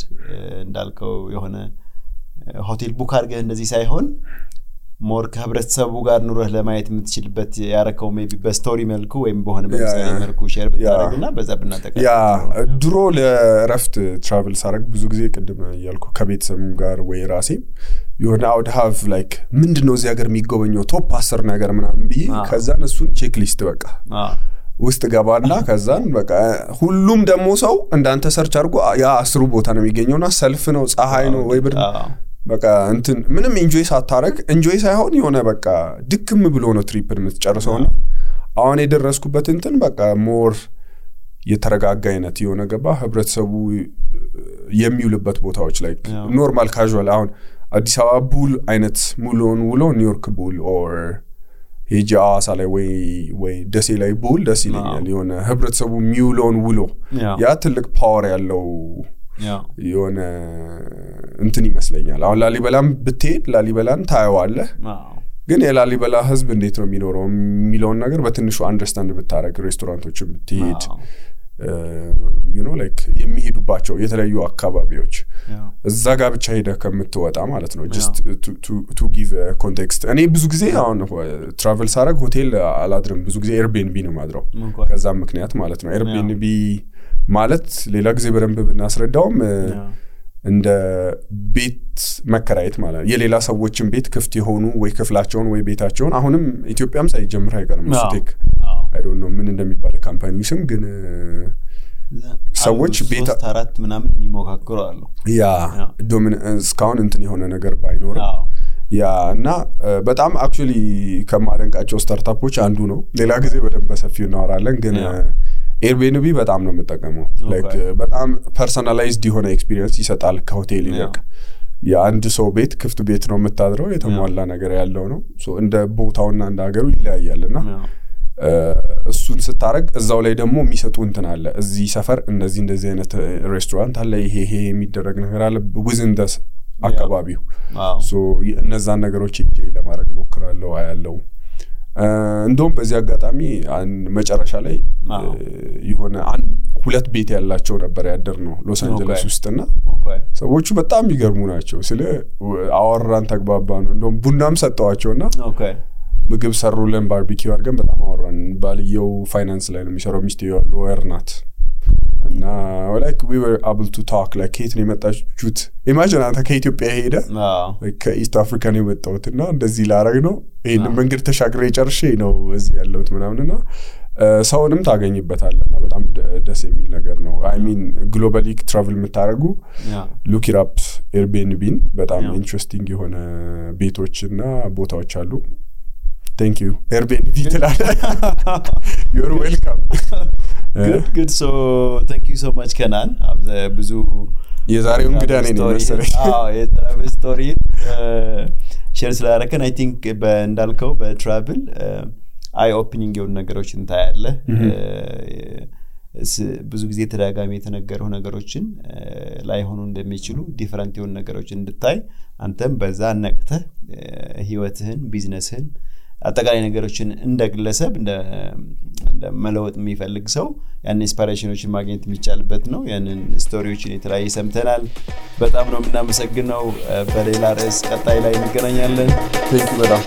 እንዳልከው የሆነ ሆቴል ቡክ አድርገህ እንደዚህ ሳይሆን ሞር ከህብረተሰቡ ጋር ኑረህ ለማየት የምትችልበት ያረከው ሜቢ በስቶሪ መልኩ ወይም በሆነ በምሳሌ መልኩ ሼር ብታረግና በዛ ብናጠቃ ያ ድሮ ለረፍት ትራቭል ሳረግ ብዙ ጊዜ ቅድም ያልኩ ከቤተሰብ ጋር ወይ ራሴ የሆነ አውድ ሃቭ ላይክ ምንድነው እዚህ ሀገር የሚጎበኘው ቶፕ 10 ነገር ምናምን ብዬ ከዛን እሱን ቼክ ሊስት በቃ ውስጥ ገባና ከዛን በቃ ሁሉም ደሞ ሰው እንዳንተ ሰርች አድርጎ ያ 10 ቦታ ነው የሚገኘውና ሰልፍ ነው ፀሐይ ነው ወይ ብርድ በቃ እንትን ምንም ኢንጆይ ሳታረግ ኢንጆይ ሳይሆን የሆነ በቃ ድክም ብሎ ነው ትሪፕን የምትጨርሰውና አሁን የደረስኩበት እንትን በቃ ሞር የተረጋጋ አይነት የሆነ ገባ ህብረተሰቡ የሚውልበት ቦታዎች ላይ ኖርማል ካዡዋል አሁን አዲስ አበባ ቡል አይነት ሙሉን ውሎ ኒውዮርክ ቡል ኦር ሄጃሳ ላይ ወይ ደሴ ላይ ቡል ደስ ይለኛል የሆነ ህብረተሰቡ ሚውሎን ውሎ ያ ትልቅ ፓወር ያለው የሆነ እንትን ይመስለኛል አሁን ላሊበላም ብትሄድ ላሊበላን ታየዋለህ ግን የላሊበላ ህዝብ እንዴት ነው የሚኖረው የሚለውን ነገር በትንሹ አንደርስታንድ ብታረግ ሬስቶራንቶችን ብትሄድ you know like የሚሄዱባቸው የተለያዩ አካባቢዎች እዛ ጋር ብቻ ሄደ ከምትወጣ ማለት ነው just to give a context እኔ ብዙ ጊዜ አሁን ትራቨል ሳረግ ሆቴል አላድርም ብዙ ጊዜ ኤርቢኤንቢ ነው ማድረው ከዛም ምክንያት ማለት ነው ኤርቢኤንቢ ማለት ሌላ ጊዜ በደንብ ብናስረዳውም እንደ ቤት መከራየት ማለት የሌላ ሰዎችን ቤት ክፍት የሆኑ ወይ ክፍላቸውን ወይ ቤታቸውን አሁንም ኢትዮጵያም ሳይጀምር አይቀርም ስቴክ I don't know ምን እንደሚባል ካምፓኒ ስም ግን ሰዎች ቤት 4 ምናምን የሚሞካከሩ አሉ ያ ዶሚናንስ ካውን እንትን የሆነ ነገር ባይኖር ያ እና በጣም አክቹሊ ከማደንቃቸው ስታርታፖች አንዱ ነው ሌላ ጊዜ በደንብ በሰፊው እናወራለን ግን ኤርቢኤንቢ በጣም ነው የምጠቀመው ላይክ በጣም ፐርሰናላይዝድ የሆነ ኤክስፒሪየንስ ይሰጣል ከሆቴል ይልቅ የአንድ ሰው ቤት ክፍት ቤት ነው የምታድረው የተሟላ ነገር ያለው ነው ሶ እንደ ቦታውና እንደ ሀገሩ ይለያያልና እሱን ስታረግ እዛው ላይ ደግሞ የሚሰጡ እንትን አለ እዚህ ሰፈር እንደዚህ አይነት ሬስቶራንት አለ ይሄ የሚደረግ ነገር አለ within the አካባቢው ሶ እነዛን ነገሮች እጄ ለማድረግ ሞክራለሁ አያለው እንደውም በዚህ አጋጣሚ መጨረሻ ላይ የሆነ ሁለት ቤት ያላቸው ነበር ያደር ነው ሎስ አንጀለስ ውስጥና ሰዎቹ በጣም ይገርሙ ናቸው ስለ አወራን ተግባባን እንደውም ቡናም ሰጣዋቸውና ምግብ ሰሩልን ባርቢኪው አድርገን በጣም አወራን ባልየው ፋይናንስ ላይ ነው የሚሰራው ሚስቴው ሎየር ናት እና like we were able to talk like ከየት ነው የመጣችሁት imagine አንተ ከኢትዮጵያ ሄደ ከኢስት አፍሪካ ነው የመጣሁትና እንደዚህ ላረግ ነው ይሄን መንገድ ተሻግሬ ጨርሼ ነው እዚህ ያለሁት ምናምንና ሰውንም ታገኝበታለና በጣም ደስ የሚል ነገር ነው I mean globally travel የምታረጉ look it up Airbnb በጣም ኢንትረስቲንግ የሆነ ቤቶችና ቦታዎች አሉ Thank you Airbnb You're welcome good so thank you so much Kenan ብዙ የዛሬው እንግዳ ነኝ መሰለኝ የትራቭል ስቶሪ ሼር ስላደረከን I think እንዳልከው በትራቭል አይ ኦፕኒንግ የሆኑ ነገሮችን ታያለህ ብዙ ጊዜ ተደጋጋሚ የተነገሩ ነገሮችን ላይ ሆኖ እንደሚችሉ ዲፈረንት የሆኑ ነገሮችን እንድታይ አንተም በዛ ነቅተህ ህይወትህን ቢዝነስህን አጠቃላይ ነገሮችን እንደግለሰብ እንደ መለወጥ የሚፈልግ ሰው ያን ኢንስፓይሬሽኖችን ማግኘት የሚቻልበት ነው ያንን ስቶሪዎችን የተለያየ ሰምተናል በጣም ነው የምናመሰግነው በሌላ ርዕስ ቀጣይ ላይ እንገናኛለን ቴንክ ዩ በጣም